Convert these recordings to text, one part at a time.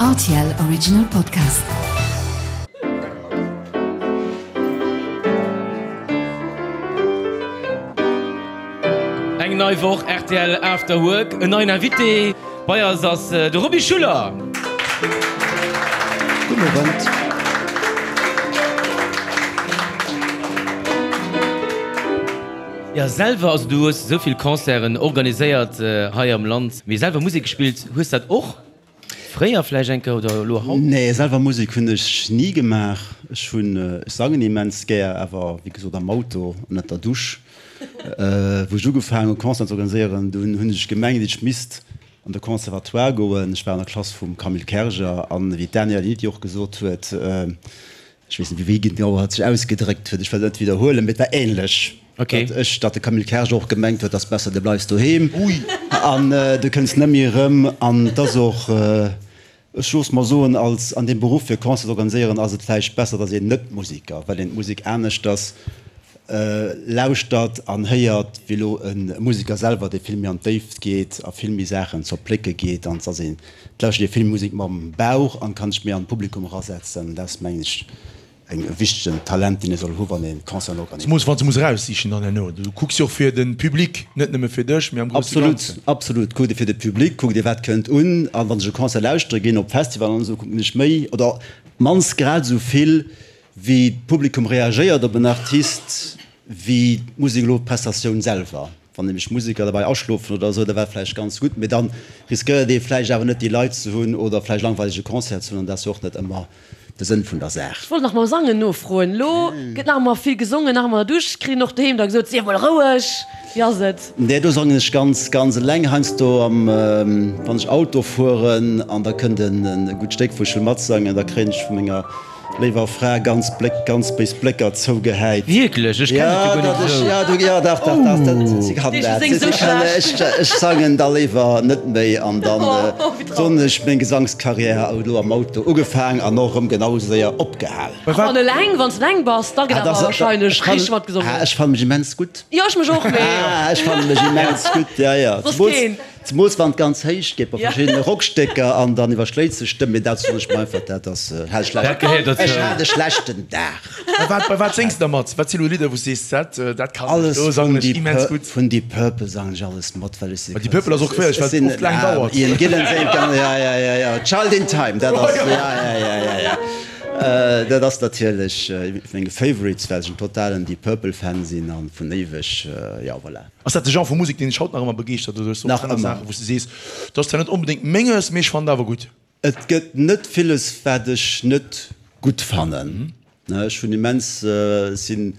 Rtl Original Podcast. Eng nei Woch rtl After Work, en neien Invité. Bei eis ass de Roby Schuller. Gudden Owend. Jo, selwer, also du hues esou vill Concerten organiséiert hei am Land, mee selwer Musek gespillt hues dat och fréier vläicht eng Kéier oder elo haut? Nee, selwer Musek hunn ech ni gemaach. Ech hunn, ech sangen immens gär, awer wéi gesot am Auto an ënnert der Dusch. Wou ech ugefaangen hu Concerten ze organiséieren, dunn hunn ech gemengt ech misst an de Conservatoire goen. Ech war an der Klass vum Camille Kerger an wéi d'Danielle Niti och gesot huet, ech weess net wéi genau hatt sech ausgedréckt huet, ech wëll et net widderhuelen, mee et war ähnlech, datt ech, datt de Camille Kerger och gemengt huet, ass besser de bleifs doheem an du kënns net méi erëm. An et ass och, ech loosse mer soen, als an deem Beruff fir Concert ze organiséieren ass et vläicht besser, datt een net Musiker, well een d'Musek aneschters lauschtert an héiert wéi elo e Musiker selwer, dee vill méi an d'Déift geet a vill méi Saachen zerplécke geet. An et ass een, et lauschtert ee vill Musek mam Bauch an kann sech méi an d'Publikum erasetzen. Dat ass, mengen ech, e wichtegen Talent, deen ee soll hu wann ee Concerten organiséiert. Zemoos wann s de muss eraussichen dann herno. Du kucks jo och fir de Public, net nëmme fir dech, mee am grousse Ganzen. Absolut, absolut. Kuckt ee fir de Public, kuckt ee wat kënnt un. An wann ech e Concert lauschtere ginn, op Festivalen an esou, kucken ech méi oder mannst grad esou vill Wéi d'Publikum reagéiert op en Artist, wéi d'Musek elo, d'Prestatioun selwer. Wann nämlech d'Museker derbäi aschlofen oder esou, da war vläicht ganz gutt, mee dann riskéiert ee vläicht awer net déi Leit ze hunn oder vläicht langweilege Concert ze hunn an dat ass jo och net ëmmer de Sënn vun der Saach. Ech wollt nach mam Sangen nofroen. Elo gëtt nach ëmmer vill gesongen, nach ëmmer an der Dusch, kritt een och doheem da gesot, sief mol roueg, wéi ass et? Nee, do sangen ech ganz, ganz eleng. Heiansdo am, wann ech Auto fueren an da kënnt en gutt Stéck wou ech wëll matsangen, da kréien ech vu menger Léiwer Fra, ganz Bléck, ganz béis Blécker zougehäit. Wierklech? Ech kennen et jo guer net esou. Ja, du, ja, dach, dach, dach, dat, si kann dat. Si kann, ech, ech sangen da léiwer net méi an dann soen ech, meng Gesangskarriär huet elo am Auto ugefaang an och erëm genau esou séier opgehal. An eleng, wann s de eleng bass, da gëtt awer wahrscheinlech richteg matgesongen. Ech fanne mech immens gutt. Jo, ech mech och, mee. Ech fanne mech immens gutt, ja, ja. Soss keen. Zemools wann et ganz héich geet bei verschiddene Rockstécker an dann iwwerschléit sech d'Stëmm, mee dat soen ech mer einfach, dat ass, hat ech Dat gehéiert dozou. Ech hat e schlechten Dag. Bei wat, bei wat séngs de da mat? Wat si lo Lidder wou s sees, dat, dat kann ech, Alles do vun sangen ech Deep immens Pur, gutt? vun Deep Purple sangen ech alles mat, well ech se Bei Deep Purple ass och schwiereg, well et oft laang dauert. Ian Gillan séngt ganz, ja, ja, ja, ja, Child in Time, dat ass, ja, ja, ja, ja, ja, dat ass natierlech ee vu menge Favorites, well ech en totalen Deep Purple Fan sinn an vun éiweg, jo, voilà. Ass dat de Genre vu Musek, deen dech haut nach ëmmer begeeschtert oder hues du och Nach aner ëmmer. Saachen, wou s du sees, dat ass zwar net onbedéngt menges, mee ech fannen et awer gutt? Et gëtt net villes, wat ech net gutt fannen. Ech hunn immens, ech sinn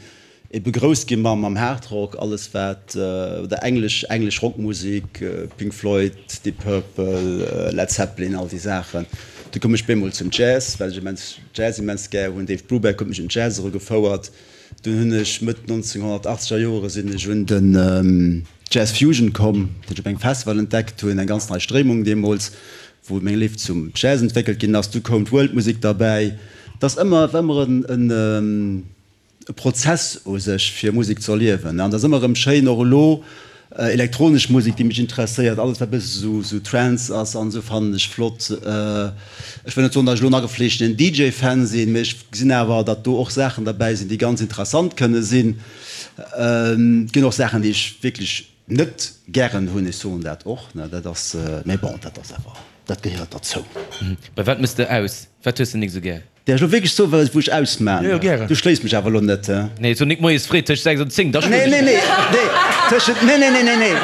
ebe grouss gi mam Hardrock, alles wat, oder englesch, englesch Rockmusek, Pink Floyd, Deep Purple, Led Zeppelin, all déi Saachen. Du koum ech bemol zum Jazz, well ech immens Jazz immens gär hunn. Dave Brubeck huet mech un d'Jazz erugefouert. Dunn hunn ech Mëtt 1980 er Joere sinn ech un den Jazz Fusion komm, deen ech op engem Festival entdeckt hunn, eng ganz nei Stréimung deemools, wou meng Léift zum Jazz entwéckelt ginn ass. Du koum d'World Musik derbäi. Et ass ëmmer, war ëmmer en e Prozess u sech fir Musek ze erliewen an et ass ëmmer erëm schéin, och elo Elektronesch Musek, déi mech interesséiert, alles wat e bësse sou sou Trance ass an esou fannen ech flott. Ech wëll net soen, datt ech elo en agefleeschtenen DJ-Fan sinn, mee ech gesinn awer, datt do och Saachen derbäi sinn, déi ganz interessant kënne sinn. Et ginn och Saachen, déi ech wierklech net gären hunn, ech soen dat och, ne, dat ass, mee bon, dat ass awer, dat gehéiert derzou. Bei wat mëss de aus? Wat hues de nik sou gär? Däerf ech lo wierklech soen, wat wou ech ausmaan? Jo, jo, gären. Du schléis mech awer elo net, he? Nee, so nik moies fréi tëscht 6 an 10, da schloen Nee, ech nee, dech. nee, nee, tëschent, nee, nee, nee, nee, nee,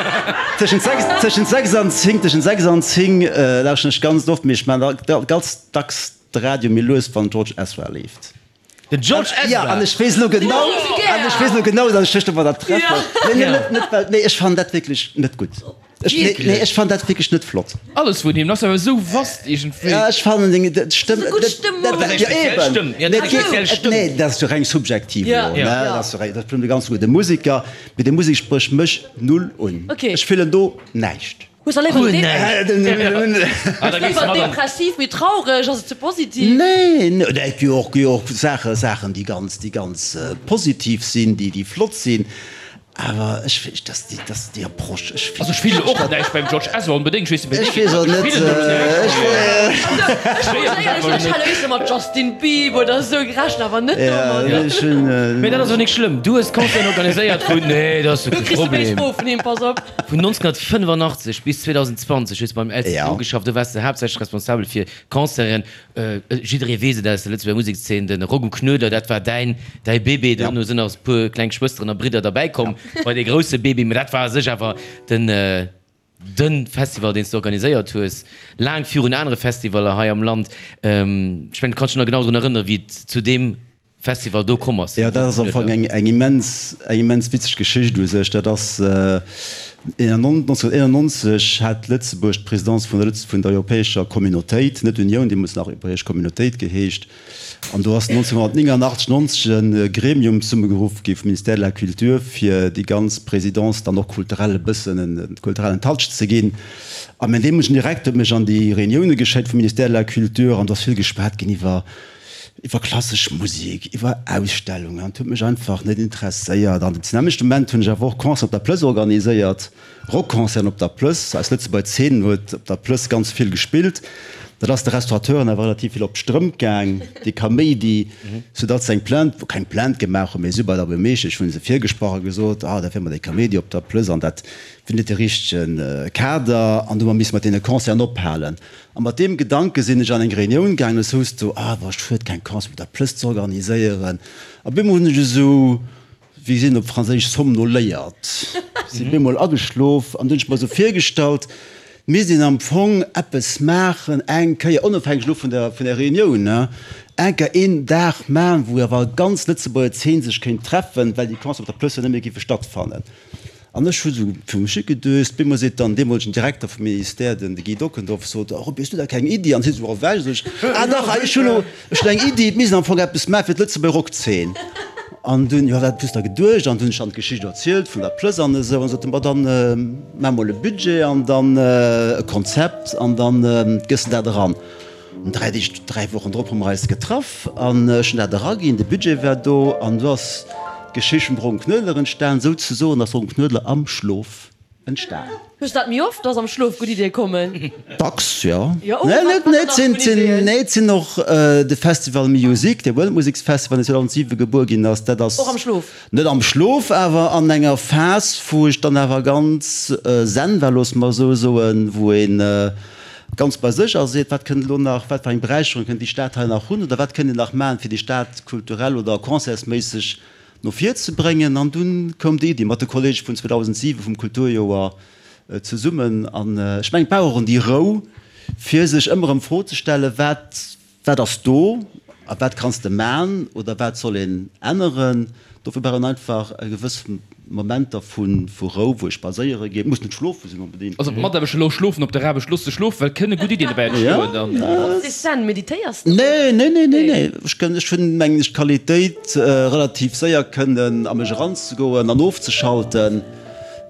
tëschent 6, tëschent 6 an 10, tëschent 6 an 10 lauschteren ech ganz oft, mee ech maan da ganz dacks de Radio méi lues, wann George Ezra leeft. Den George Ezra? Ja, an ech weess elo genau, an ech weess elo genau, datt ech dech domadder treffen. Nee, nee, net, net well, nee, ech fannen dat wierklech net gutt. Ech, nee, nee, ech fannen dat wierklech net flott. Alles vun him, ass awer esou vast iergendwéi. Ja, ech fannen deng Stëmm. Dat ass eng gutt Stëmm. Dat ass eng speziell Stëmm. Ja, dat ass eng speziell Stëmm. Nee, dat ass jo reng subjektiv elo, ne? Dat ass jo reng, dat ass bestimmt e ganz gudde Museker, mee déi Musek sprécht mech null un. Ech fillen do näischt. Hues der léiwer depressiv, méi traureg, ass et ze positiv? Nee, nee, et gi och, gi och Saache, Saachen, déi ganz, déi ganz positiv sinn, déi, déi flott sinn. Awer ech weess, dass déi, dass déi Approche, ech Also ech fillen och näischt beim George Ezra onbedéngt, ech weess net wéi Ech weess och net, ech Ech hat éischter mat Justin Bieber oder esou gerechent, awer net domat. Ja, ech hunn. Mee dat ass och nik schlëmm, du hues Concerten organiséiert vun, nee, dat ass jo Du kee kriss de béis Problem. Fro vun him, pass op. Vun 1985 bis 2020 hues du beim LCGB geschafft, do waars de haaptsächlech responsabel fir Concerten. Jidderee weess et aus der Lëtzebuerger Musekszeen, de Rock um Knuedler, dat war däin, däi Bébé. Dono sinn nach e puer kleng Schwësteren a Bridder derbäi komm bei dee grousse Bébé. Mä dat war a sech awer den, de Festival, deen s de organiséiert hues, laang virun anere Festivaller hei am Land. Ech mengen, du kanns dech nach genau drun erënneren, wéi et zu deem Festival do komm ass. Jo, dat ass am Fong eng eng immens eng immens witzeg Geschicht u sech. Dat ass 1991 hat Lëtzebuerg d'Presidence vun der Lëtz vun der Europäescher Communautéit, net Unioun, deemools nach Europäesch Communautéit geheescht. An do ass 1989, 90 e Gremium zesummegeruff gi vum Ministère de la Culture, fir déi ganz Présidence dann och kulturell e bëssen e kulturellen Touch ze ginn. A mäin deemolegen Direkter huet mech an déi Reunioune geschéckt vum Ministère de la Culture an do ass vill geschwat ginn iwwer iwwer klassesch Musek, iwwer Ausstellungen, an et huet mech einfach net interesséiert. An zu nämmlechte Moment hunn ech awer och Concerten op der Plëss organiséiert, Rockconcerten op der Plëss. Eis Lëtzebuerger Zeen huet op der Plëss ganz vill gespillt. Dat ass de Restaurateuren awer relativ vill op d'Strëmp gaang, dee Kaméidi, soudatt se eng Plainte, keng Plainte gemaach hunn, mee si bei der Buermeeschtesch hu se virgesprach a gesot, ah, dat wier mat dee Kaméidi op der Plëss an dat wier net de richtege Kader an do hu mer misse mat deene Concerten ophalen. A mat deem Gedanke sinn ech an eng Reunioun gaangen, es houss do, ah, war schued keng Concert op der Plëss ze organiséieren. A bemol hunn ech esou, wéi seet een op Franséisch, somnoléiert, sinn bemol ageschlof an du hunn ech mer esou virgestallt, misst een am Fong eppes maachen, eng Kéier, onofhängeg elo vun der, vun der Reunioun, ne, eng Kéier een Dag maachen, wou awer ganz Lëtzebuerger Zeen sech kéint treffen, well déi Concert op der Plëss jo net méi géife stattfannen. An ech hu sou fir mech higedöst. Bemol seet dann deemolegen Direkter vum Ministère, den de Guy Dockendorf, sot, Oh Roby, hues du da keng Iddi? An hie sou ewech. Sot ech, Ah dach, ech hunn elo, ech hunn eng Iddi, et misst een am Fong eppes maache fir d'Lëtzebuerger Rockzeen. An dunn, jo, wat hues de da geduecht? An dunn hunn ech dann d'Geschicht erzielt vun der Plëss an esou. An sot en, Ma dann maach mol e Budget an dann e Konzept an dann gëss de dat eran. An 3 Deeg, 3 Wochen drop hu mer eis getraff an ech hunn dat eraginn, de Budget war do an do ass d'Geschicht vum Ron Knuedler entstan. Souzesoen ass Ron Knuedler am Schlof entstan. Hues du dat méi oft, dass am Schlof gutt Iddie kommen? Dacks, jo. Jo, oh, wat wat nach vun Iddien? Nee, et sinn och de Festival Music, de Weltmuseksfestival, deen 2007 gebuer ginn ass, dat ass. Och am Schlof? Net am Schlof, awer an enger Phas, wou ech dann awer ganz zen war, loosse mer esou soen, wou ee ganz bei sech ass a seet, wat kënnt elo nach, wat fir eng Beräicherung kënnt déi Stad hei nach hunn oder wat kënnt een nach maachen, fir déi Stad kulturell oder concertsméisseg no vir ze bréngen. An dunn koum déi Iddi mat de Kollege vun 2007 vum Kulturjoer zesummen. An ech mengen, et brauch och en déi Rou, fir sech ëmmer erëm d'Fro ze stellen, wat Wat ass do a wat kanns de man oder wat soll een änneren? Dofir brauch een einfach e gewëss Momenter vu Rou, wou ee spadséiere geet. Muss net schlofe sinn onbedéngt. Also d'Mataarbechter elo schlofen op der Aarbecht, looss se schlofen, well kënne gutt Iddien dobäi entstoen dann. Ass dee Zen, meditéiers de? Nee, nee, nee, nee, nee. Ech kënn, ech hunn mengen ech d'Qualitéit relativ séier kënnen a mech eranzegoen an ofzeschalten.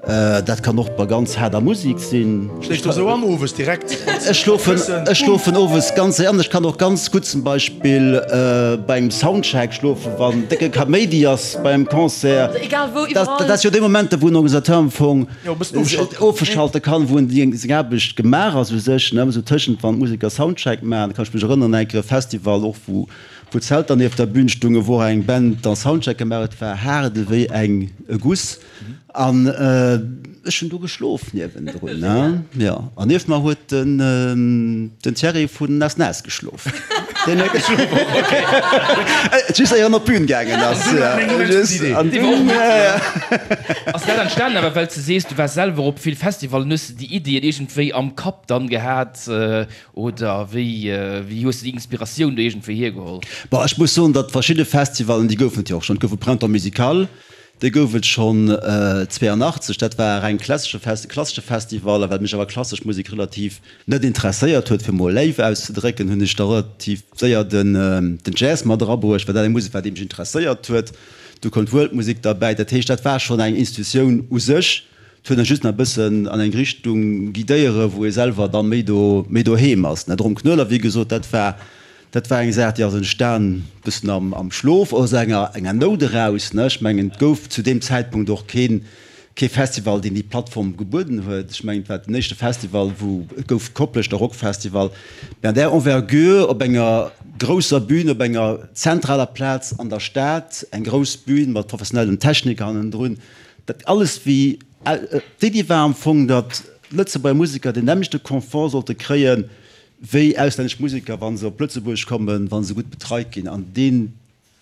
Dat kann och bei ganz haarder Musik sinn. Schléifs du esou an owes direkt? Ech schlofen, ech schlofen owes ganz séier an. Ech kann och ganz gutt zum Beispill bei engem Soundcheck schlofen, wann décke Kaméidi ass bei engem Concert. Also egal wou, iwwerall. Dat ass jo dee Moment, wou en Organisateur am Fong ofeschalte kann, wou en déi seng Aarbecht gemaach ass u sech, ne, esou tëschent wann d'Museker Soundcheck maachen. Kann ech mech erënneren, eng Kéier e Festival och, wou wou Zelter nieft der Bün stungen, wou och eng Band dann Soundcheck gemaach huet, war haart ewéi eng e Guss. An ech hunn do geschlof niewendrun, ne? Jo. An nieft mer huet den, den Thierry vun Nas Nas geschlof. Deen huet geschlof och, okay. Just éier en op d'Bün gaangen ass. An dunn, ja, ja. Ass dat entstanen awer well s de sees, du waars selwer op vill Festivallen, hues de déi Iddien iergendwéi am Kapp dann gehat oder wéi, wéi hues de déi Inspiratioun do iergendwéi hiergeholl? Bon, ech muss soen, datt verschidde Festivallen, déi goufen et jo och schonn. Et gouf e Printemps musical, Dee gouf et schonn 82, dat war e reng klassesche klassesche Festival. A well mech awer klassesch Musek relativ net interesséiert huet, fir mol léif auszedrécken, hunn ech da relativ séier den den Jazz mat erabruecht, well dat eng Musek war, déi mech interesséiert huet. Du koum d'World-Musek derbäi. Dat heescht, dat war schonn eng Institutioun u sech. Et huet en just nach e bëssen an eng Richtung guidéiere wou ee selwer da méi do méi doheem ass. De Rom Knoeller, wéi gesot, dat war. Dat war eng Saach, déi ass entstan bëssen am, am Schlof, aus enger, enger Nout eraus, ne. Ech mengen, et gouf zu deem Zäitpunkt och keen, kee Festival, deen déi Plattform gebueden huet. Ech mengen, et war den éischte Festival, wou, et gouf Kopleschter Rockfestival, mä an där Envergure, op enger grousser Bühn, op enger zentraler Plaz an der Stad, eng grouss Bühn mat professionellem Techniker hannendrun, dat alles wéi, d'Iddi war am Fong, datt Lëtzebuerger Museker deen nämmlechte Confort sollte kréien, wéi auslännesch Museker, wa se op Lëtzebuerg kommen, wa se gutt betreit ginn. An deen,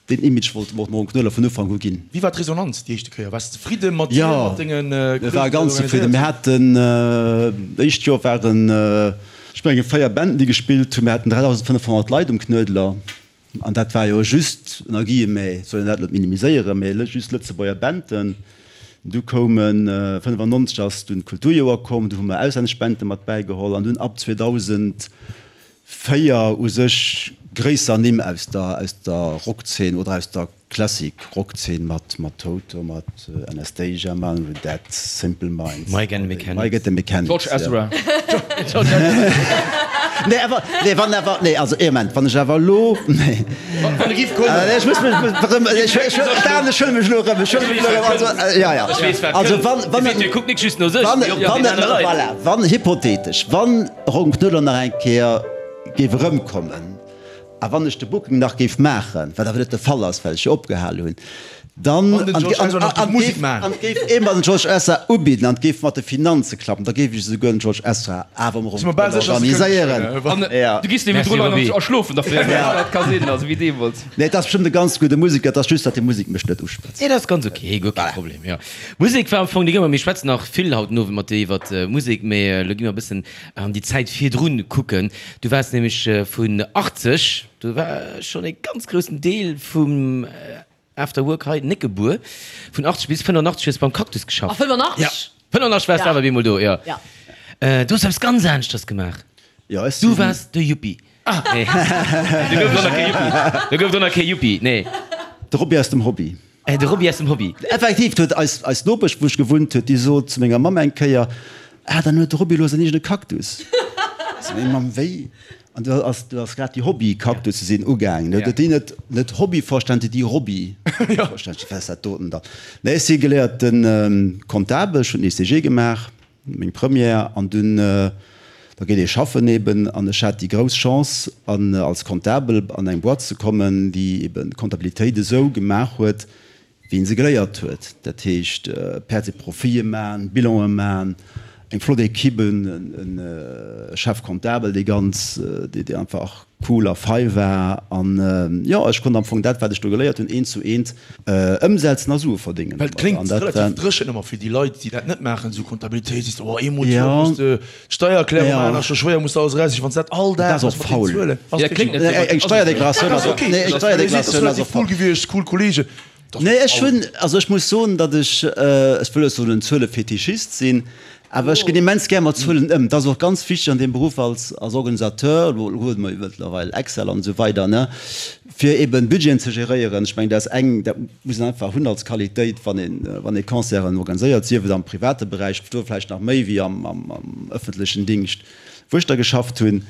deen Image wollte mer och dem Ron Knoller vun Ufank u ginn. Wéi war d'Resonanz déi éischte Kéier? Waars de zefridde mat dir, mat denge Jo, mir ware ganz zefridden. Mir haten, d'éischt Joer waren, ech mengen, 4 Banden, déi gespillt hunn. Mir haten 3.500 Leit um Knuedler. An dat war jo just, ënner Guillemets, soll een dat net minimiséieren, mee just Lëtzebuerger Banden. Du koumen, 95 ass dunn d'Kulturjoer komm, du hu mer auslännesch Bande mat bäigeholl an dunn ab 2004 u sech gréisser Nimm aus der, aus der Rockzeen oder aus der Classic Rockzeen mat, mat Toto, mat Anastacia, Manu, Dead, Simple Minds, Mike and the Mechanics. Mike and the Mechanics, George Ezra. Nee, awer, nee, wann awer, nee, also ee Moment, wann ech awer elo, nee. Wann e giff kommen. Ech muss mech erëm, ech, ech, Dan, ech huele mech elo erëm, ech huele mech elo erëm, also, ja, ja. Ech weess, wat Also, kënnt. wann, wann, De Video kuckt nik just no sech, wann, mee och no wann, den anere Leit. voilà, wann, hypothetesch, wann Ron Knuedler nach eng Kéier géif erëmkommen, A wann ech de Booking nach géif maachen, wat awer net de Fall ass, well ech jo opgehal hunn, dann, Wann den George Ezra nach géif Musek maachen. an et géif ee mer den George Ezra ubidden an et géif mat de Finanze klappen, da géif ech esouguer den George Ezra awer am Si mer bal sécher, dass e organiséieren. kënnt. An Ja. du giss Merci, niewendrun Roby. a schlofen derfir. Dat ka sinn, also wéi deemools. Nee, et ass bestëmmt e ganz gudde Museker, et ass just, datt déi Musek mech net uschwätzt. Nee, dat ass ganz ok, guer kee Problem, jo. Musek war am Fong déi Gëmmer. Mir schwätzen nach vill haut den Owend mat dir iwwert Musek, mee elo gi mer e bëssen An déi Zäit virdrun kucken. Du waars nämlech vun 80, do war schonn e ganz groussen Deel vum After Work hei net gebuer, vun 80 bis 85 hues beim Cactus geschafft. A 85? Ja, 85 waars de awer bemol do, jo. Ja. Du hues eppes ganz aneschters gemaach. Jo, ech sinn. Du waars de Yuppie. Nee, do gouf et och nach kee Yuppie. Do gouf et och nach kee Yuppie, nee. De Roby aus dem Hobby. De Roby aus dem Hobby. Effektiv, huet eis, eis Nopesch, wou ech gewunnt huet, déi sot zu menger Mamm eng Kéier, Ah, dann huet de Roby elo säin eegene Cactus. Sot meng Mamm, Wéi? An du ass, du ass grad déi Hobby-Cactusse sinn ugaangen. Huet déi net, net Hobby verstanen, déi Roby verstanen. Wat ass dat doten dann? Nee, ech si geléierte Comptabel, ech hunn den ECG gemaach. Meng Première an dunn, da geet ee schaffen eben an ech hat déi grouss Chance an als Comptabel an eng Boîte ze kommen, déi eben d'Comptabilitéit esou gemaach huet, wéi een se geléiert huet. Dat heescht Pertes et Profiten man, Bilanen man, eng flott Equipe, en Chef comptable, dee ganz, dee einfach cool a fei war an jo, ech konnt am Fong dat, wat ech do geléiert hunn, eent zu eent ëmsetzen a Sue verdéngen Well et domadder. kléngt An dat relativ war. dréchen ëmmer fir déi Leit, déi dat net maachen, esou Comptabilitéit, sees de, oh eemol d'Joer Ja. muss de d'Steiererklärung Ja. maachen, ass scho schwéier, muss de alles eraussichen, wann s de dat all Dat Dag ass och méchs mat den faul. Zuelen, ass Ja, kléngt net wierklech. esou, Eng Steierdeklaratioun Dat ass ass och, ok, nee, eng dat ass Steierdeklaratioun ass relativ och cool faul. gewiescht, cool Kollegen. Nee, ech hunn, also ech muss soen, datt ech, ech wëll net soen en Zuelefetischist sinn, awer ech ginn immens gär mat Zuelen ëm. Dat ass och ganz wichteg an deem Beruff als, als Organisateur, elo huet mer jo mëttlerweil Excel an esou weider, ne, fir eben Budgeten ze geréieren. Ech mengen, dat ass eng, dat muss een einfach hunn als Qualitéit, wann een, wann ee Concerten organiséiert, sief et am private Beräich, do vläicht nach méi wéi am, am, am ëffentlechen Dingscht. Wou ech da geschafft hunn,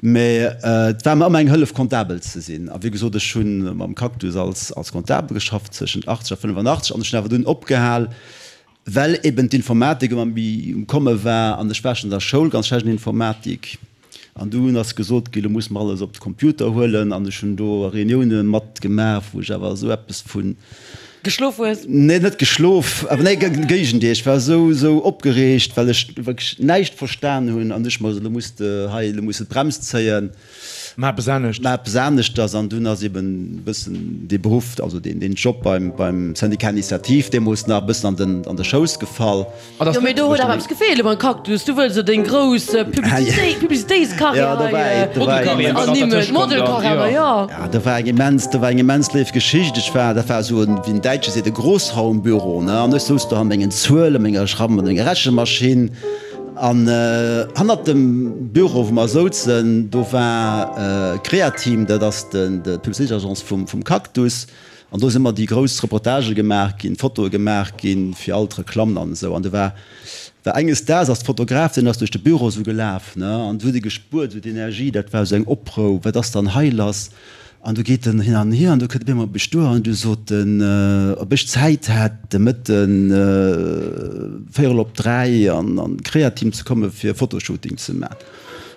mä et war mer ëmmer eng Hëllef Comptabel ze sinn. A wéi gesot, ech hu mam Cactus als als Comptabel geschafft zwëschent 80 a 85 an ech hunn awer dunn opgehal, well eben d'Informatik ëmmer méi um Komme war an ech war schonn an der Schoul ganz schlecht an Informatik an dunn ass gesot ginn, lo musse mer alles op de Computer huelen an ech hunn do Reunioune matgemaach, wou ech awer esou eppes vun Geschlof hues? Nee, net geschlof, awer nee, Géigendeel, ech war esou, esou opgereegt, well ech wierklech näischt verstan hunn an ech mer esou, lo muss de hei, lo muss de d'Brems zéien. Maach eppes anescht. Maach eppes aneschters. An dunn ass eben e bëssen dee Beruff, also deen, deen Job beim, beim Syndicat Initiative deemools nach e bëssen an den, an de Schouss gefall. Jo, mee do huet awer eppes gefeelt beim Cactus. Du wëlls jo deng grouss Publicitéitskarriär hei ernimmen, Modelkarriär, jo. Ja, do war eng immens, do war eng immens léif Geschicht. Ech war, dat war esou en, wéi den Däitsche seet, e Großraumbüro, ne, an ech souz do an mengen Zuelen, menger Schramm, mat menger Rechenmaschinn an hannert dem Büro, wou mer souzen, do war Createam, dat ass den, d'Publicitéitsagence vum, vum Cactus. An do si ëmmer déi grouss Reportagë gemaach ginn, Fotoe gemaach ginn fir all d'Reklammen an esou. An do war, war enges Daags ass de Fotograf, deen ass duerch de Büro esou gelaf, ne, an du huet e gespuert, esou d'Energie, dat war esou eng Oprou, wat ass dann hei lass? An du geet en hin an hier an du kënnt op eemol op mech duer an du sot en, ob ech Zäit hätt de Mëtten véierel op 3 an an d'Createam ze komme fir e Fotoshooting ze man.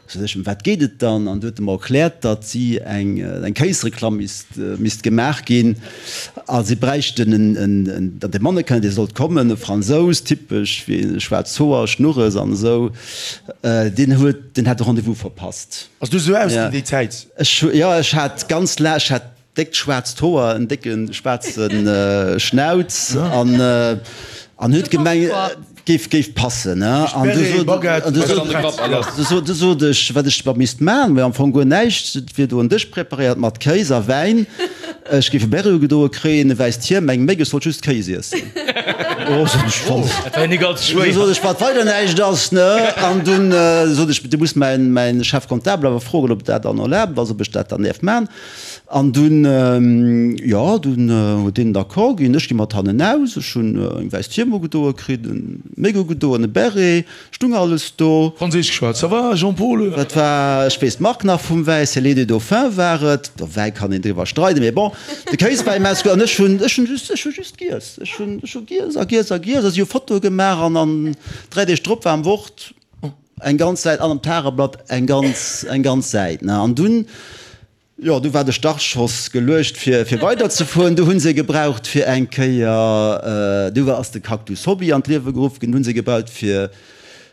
Sot ech, ëm wat geet et dann? An du huet e mer erkläert, datt si eng eng Kéisreklamm misst misst gemaach ginn a si bräichten en en en datt e Mannequin dee sollt kommen, e Fransous, typesch wéi schwaarz Hoer, Schnurres an esou, deen huet deen hätt de Rendez-vous verpasst. Ass du esou ausginn déi Zäit? Ech hu, jo, ech hat ganz laang, ech hat déckt schwaarzt Hoer, en décke schwaarze Schnauz an an huet gemengt, géif géif passen, ne. An du sot, an du sot, du sot ech, wat ech da misst man, mä am Fong guer näischt, et wier do en Dësch preparéiert mat Kéis a Wäin, ech géif e Béré ugedoe kréien, e wäisst Hiem, eng Méck, ech sollt just Kéis iessen. Oh, sot ech, wann. Dat war jo nik allze schwéier. Du sot ech, wat weider näischt ass, ne? An dunn sot ech, du muss mäin, mäin Chef comptable awer froen, ob dat dann erlaabt ass, ob ech dat dann däerf man. An dunn, jo, dunn huet deen d'accord ginn. Ech gi mat hannen aus, ech hunn eng wäisst Hiem ugedoe kritt, en Méck ugedoen, e Beret, stung alles do. Franséisch geschwat, Ça va, Jean-Paul? Dat war, ech weess d'Mark nach vum Wäi, Cellier des Dauphins war et. Iwwer Wäi kann een driwwer streiden, mee bon, de Kéis war immens gutt an ech hunn, ech hunn just, ech hu just giess. Ech hunn, ech hu giess a giess a giess a si hu Fotoe gemaach an an 3 Deeg drop war am Wort eng ganz Säit an am Tageblatt eng ganz, eng ganz Säit, ne. An dunn, jo, du war de Startschoss geluecht fir, fir weiderzefueren. Du hunn se gebraucht fir eng Kéier, du war, ass de Cactus Hobby an d'Liewe geruff ginn, du hunn se gebaut fir,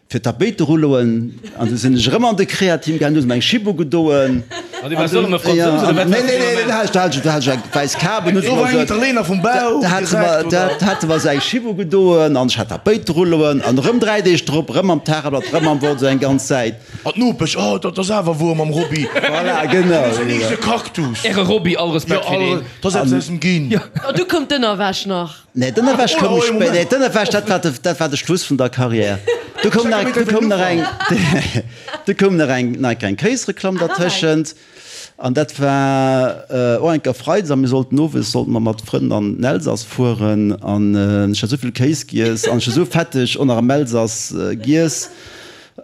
Fir d'Tapéiterulloen, an du sinn ech erëm an de Createam gaangen, du hues mer eng Schib ugedoen. An du waars och erëm e Fransous, oder wat? Nee, nee, nee, do hat ech, do hat ech eng wäiss Kap un, Do war en Italiener vum Bau direkt, oder? Da hate mer esou eng Schib ugedoen an ech hat Tapéiterulloen an erëm 3 Deeg drop, erëm am Tageblatt, erëm am Wort, esou eng ganz Säit. An d'Nopesch, Oh, dat ass awer wuer mam Roby. Voilà, genau. Deen huet säin eegene Cactus. Äre Roby, all Respekt fir deen. Jo, dat ass eppes aus dem Ginn. An du koum d'Ënnerwäsch nach. Nee, d'Ënnerwäsch koum spéider. Nee, d'Ënnerwäsch, dat war de, dat war de Schluss vun der Karriär. Du koum nach, du koum nach eng, du koum nach eng, nach eng Kéisreklamm dertëschent. An dat war och eng Kéier Freides a mir sollten owes sollte mer mat Frënn an den Elsass fueren. An ech hat esou vill Kéis giess an ech hu sou fetteg och nach am Elsass giess,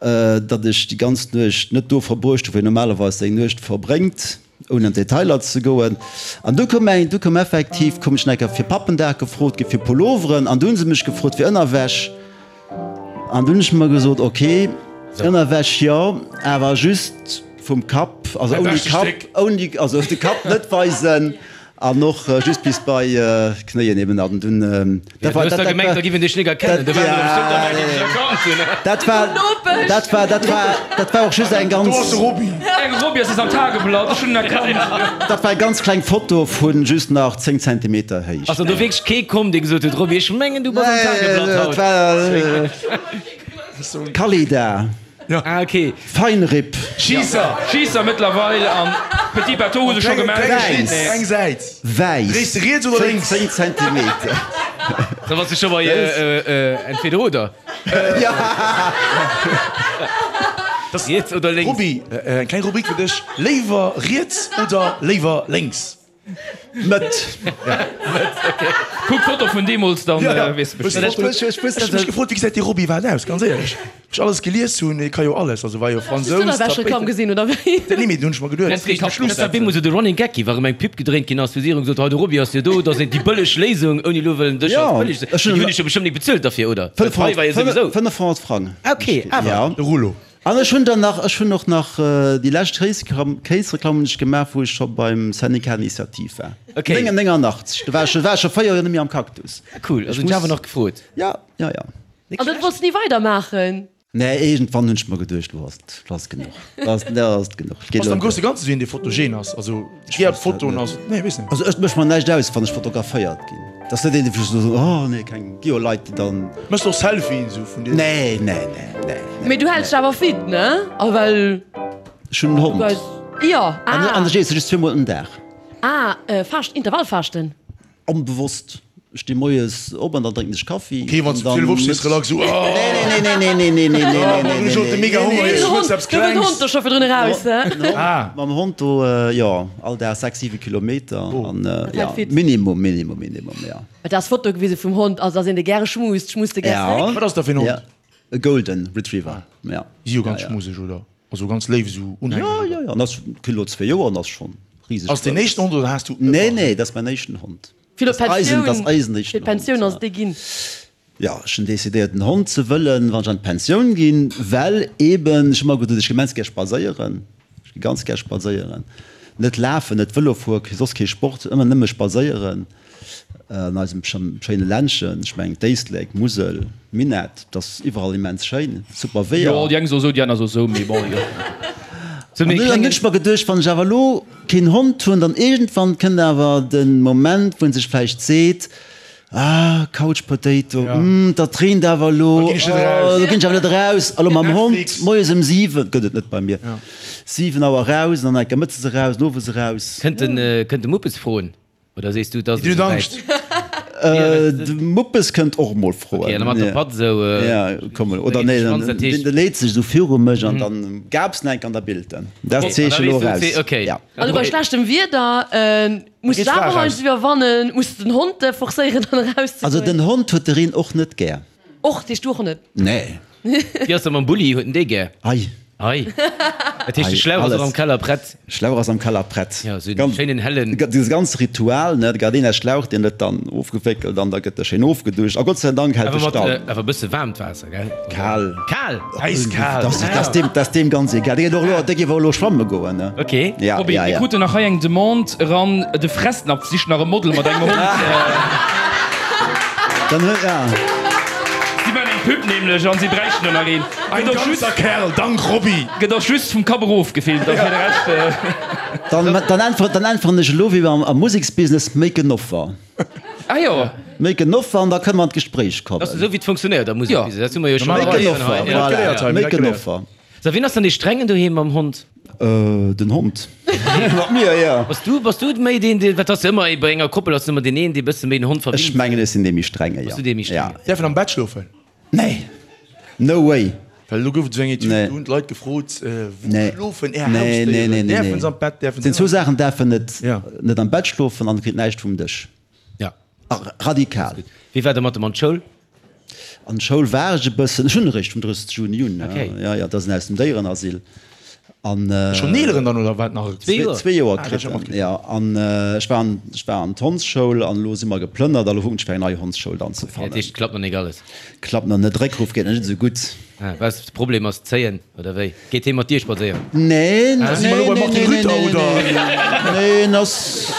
datt ech déi ganz Nuecht net do verbruecht hu wou een normalerweis seng Nuecht verbréngt. Ouni an d'Detailer ze goen. An du koum eng, du koum effektiv, koum ech nach eng Kéier fir Pappendag gefrot gi fir Pulloveren an du hu se mech gefrot fir Ënnerwäsch. An du hunn ech mer gesot, ok, Ënnerwäsch jo, awer just vum Kapp, also ouni Kapp, ouni, also de Kapp net weisen an och just bis bei Knéien eben. An dunn, dat war, dat war, da giff een dech nik erkennen, do waren der bestimmt der Meinung, déi dech erkannt hunn. Dat war, dat war, dat war, dat war och just eng ganz. Do ass de Roby. Eng Roby ass am Tageblatt, ech hunn en erkannt. Dat war eng ganz kleng Foto vu just nach 10 Zentimeter Héicht. Ass dann do wierklech kee komm, dee gesot huet, Roby, ech mengen du bass am Tageblatt haut? Dat war Kalida. Ah, ok. Feinripp. Schisser. Schisser mëttlerweil an Petit Bateau hu sech scho gemellt. Wäiss. Eng Säit. Wäiss. Dréis de riets oder lénks? 10 Zentimeter. Da bass du scho bei entweder oder. Riets oder lénks? Roby, eng kleng Rubrik fir dech, Léiwer riets oder léiwer lénks? Mëtt. Kuck d'Foto vun deemools, dann weess de Bescheed. Ech hu mech gefrot, wéi gesäit dee Roby iwwerhaapt aus, ganz éierlech. Wou ech alles gelies hunn, hie ka jo alles, also war jo Fransous, Hues du d'Ënnerwäschreklamm gesinn, oder wéi? Nee, mee dunn hunn ech mer geduet, Dat war bemol sou de Running Gag ginn, wa rëm eng Pub gedréint ginn ass, hu si erëm gesot, hei de Roby ass jo do, dat ass déi bëlleg Léisung, ouni elo wëllen dech als bëlleg ze, mee déi hunn dech jo bestëmmt nik bezuelt derfir, oder? Well d'Pai war jo souwisou. 500 Frang. Ah, ok, awer. De Rouleau. An ech hunn dann nach, ech hunn och nach déi lescht Kéisreklamm hunn ech gemaach, wou ech scho beim Syndicat Initiative war. Okay. 89, do war ech, war ech scho 4 Joer net méi am Cactus. Ah cool, also hunn ech awer nach gefrot. Ja, ja, ja. An dann wollts de ni weider maachen? Nee, iergendwann hunn ech mer geduecht, lo ass et, lo ass et genuch, lo ass, lo ass et genuch. Ass et am grousse Ganze sou een dee fotogen ass? Also ech gär op Fotoen ass, nee weess net. Also ech mécht mer näischt aus, wann ech fotograféiert ginn. Et ass net een, dee sou soen, oh nee, keng, gi jo Leit, déi dann. Méchs de och Selfien sou vun dir? Nee, nee, nee, nee. Mee du häls dech awer fit, ne? A well. Ech hunn en Hond. Jo, ah. An ech iesse just zweemol den Dag. Ah, Faascht, Intervallfaaschten? Onbewosst. Ech sti moies op an dann drénken ech Kaffi. Ok, wann s du um 12 opstees, relax esou, oh. Nee, nee, nee, nee, nee, nee, nee, nee, nee, nee, Ech hunn mega Honger, ech wëlls eppes Do wëll den Klengs. Hond do scho virdrun eraus, he? Ah. Mam Hond do, jo, all Dag 6, 7 Kilometer an, Dat jo, hält fit. Minimum, Minimum, Minimum, jo. Et ass Foto gewise vum Hond, also ass een dee gäre schmust, schmust de gär Ja. zréck? Wat ass dat fir en Ja, Hond? e Golden Retriever, ja. Si jo ganz Ja, ja. schmuseg, oder? Also ganz léif esou unhänglech, Jo, oder? jo, jo, an ass kritt elo zwee Joer an ass schonn riseg Ass deen grouss. éischten Hond oder has du Nee, ëmmer? nee, dat ass mäin éischten Hond. Fir Das eisen, das eisen fir éischten d'Pensioun Hond, ass et dee ginn. Jo, ech hunn decidéiert en Hond ze wëllen, wann ech an d'Pensioun ginn, well eben, ech hu ëmmer geduet, ech gi immens gär spadséieren, ech gi ganz gär spadséieren, net lafen, net Vëlo fueren, soss kee Sport, ëmmer nëmme spadséieren an eisem schéine Ländchen, ech mengen d'Éislek, d'Musel, d'Minett, dat ass iwwerall immens schéin, super Weeër. Jo, déi eng soe sou, déi aner soe sou, mee bon, jo. An dunn hunn ech mer geduecht, wann ech awer elo keen Hond hunn, dann iergendwann kënnt awer de Moment, wou en sech vläicht seet, Ah, Couch Potato, hm, dat reent awer elo, Da ginn ech net eraus. oh, do ginn ech awer net eraus. A lo mam Hond Netflix. moies ëm 7, gëtt et net bei mir, 7 Auer eraus an dann enker mëttes eraus, an owes eraus. Kënnt den, kënnt de Muppes froen? Oder sees du, et ass Déi esou huet wäit? Angscht. De Muppes kënnt och emol froen. Ok, an da mat der Patt esou. Ja, komm elo. Oder nee, de leet sech esou viru mech an dann gabs en enk an der Bild en. Dat Zeeche elo eraus. Ok. Ja. Also bei schlechtem Wieder muss de awer heiansdo iwwerwannen, muss de den Hond forcéieren dann erauszegoen. Also den Hond huet de Reen och net gär. Och, dee Stuch net? Nee. Wéi ass dat mam Bulli, huet en dee gär? Ei. Ei. Dat heescht, de Schlauch ass och am Keller prett? Schlauch ass am Keller prett. Jo, esou en schéinen hellen. Dee ganze Ritual, ne, Gardena-Schlauch, deen gëtt dann ofgewéckelt an da gëtt e schéin ofgeduscht a Gott sei Dank hält e Stall. Awer e bësse waarmt Waasser, gell? Kal. Kal? Äiskal. Dat ass deem ganz egal. Dee geet och elo, dee géif och elo schwamme goen, ne? Ok. Ja, Roby, ja, mir ja. kruten nach hei eng Demande eran, de Fressnapf sicht nach e Model mat engem Hond. Dann huet, ja. Si maachen eng Pub nämlech an si bräichten do nach een. Ein Gëtt och just, ganzer Kerl, dank Roby! gëtt och just vum Kapp erof gefilmt, a fir de Rescht. Dann, dann äntweren, dann äntweren ech elo wéi am, am Museksbusiness, make an offer. Ah jo. Make an offer an da kënne mer an d'Gespréich kommen. Dat ass esou wéi et funktionéiert am Museksbusiness, dat hu mer jo scho Make an offer, voilà, make an offer. So, wien ass dann dee Strengen doheem mam Hond? Den Hond. Mat mir, jo. Bass du, bass du méi deen, deen, wat ass ëmmer bei enger Koppel ass ëmmer deen een, dee bësse méi den Hond verwinnt? Ech mengen, ech sinn dee méi Strenge, jo. Bass du dee méi Strenge? Ja. Däerf en am Bett schlofen? Nee. No way. Well elo gouf et esou eng Etüd, Nee. do hunn d'Leit gefrot, wou Nee. schlofen är Nee, nee, Hausdéieren? nee, nee, Däerfen nee. se am Bett, däerfen Et sinn se zwou net? Saachen, däerfen net, Ja. net am Bett schlofen an kritt näischt vum Dësch. Ja. Radikal. Wéi war der mat dem an d'Schoul? An d'Schoul war ech e bëssen, ech hunn eréischt vum 30 Juni un, Okay. jo, jo, dat ass en aus dem Déierenasyl. An Schonn eeleren dann oder wat nach? Zwee Joer. Zwee Joer Ah, kritt dat en, ass jo. An ech war an, ech war an d'Hondsschoul an elo si mer geplënnert a lo kucken ech fir eng nei Hondsschoul dann ze Dat fannen. heescht, klappt nach nik alles? Klappt nach net, Réckruf geet nach net esou gutt. Ah, was, de Problem ass d'Zéien, oder wéi? Geet hee mat dir spadséieren? Nee, nee, Si mer elo nee, beim Martin nee, Rütter, nee, oder? nee, nee, en ass,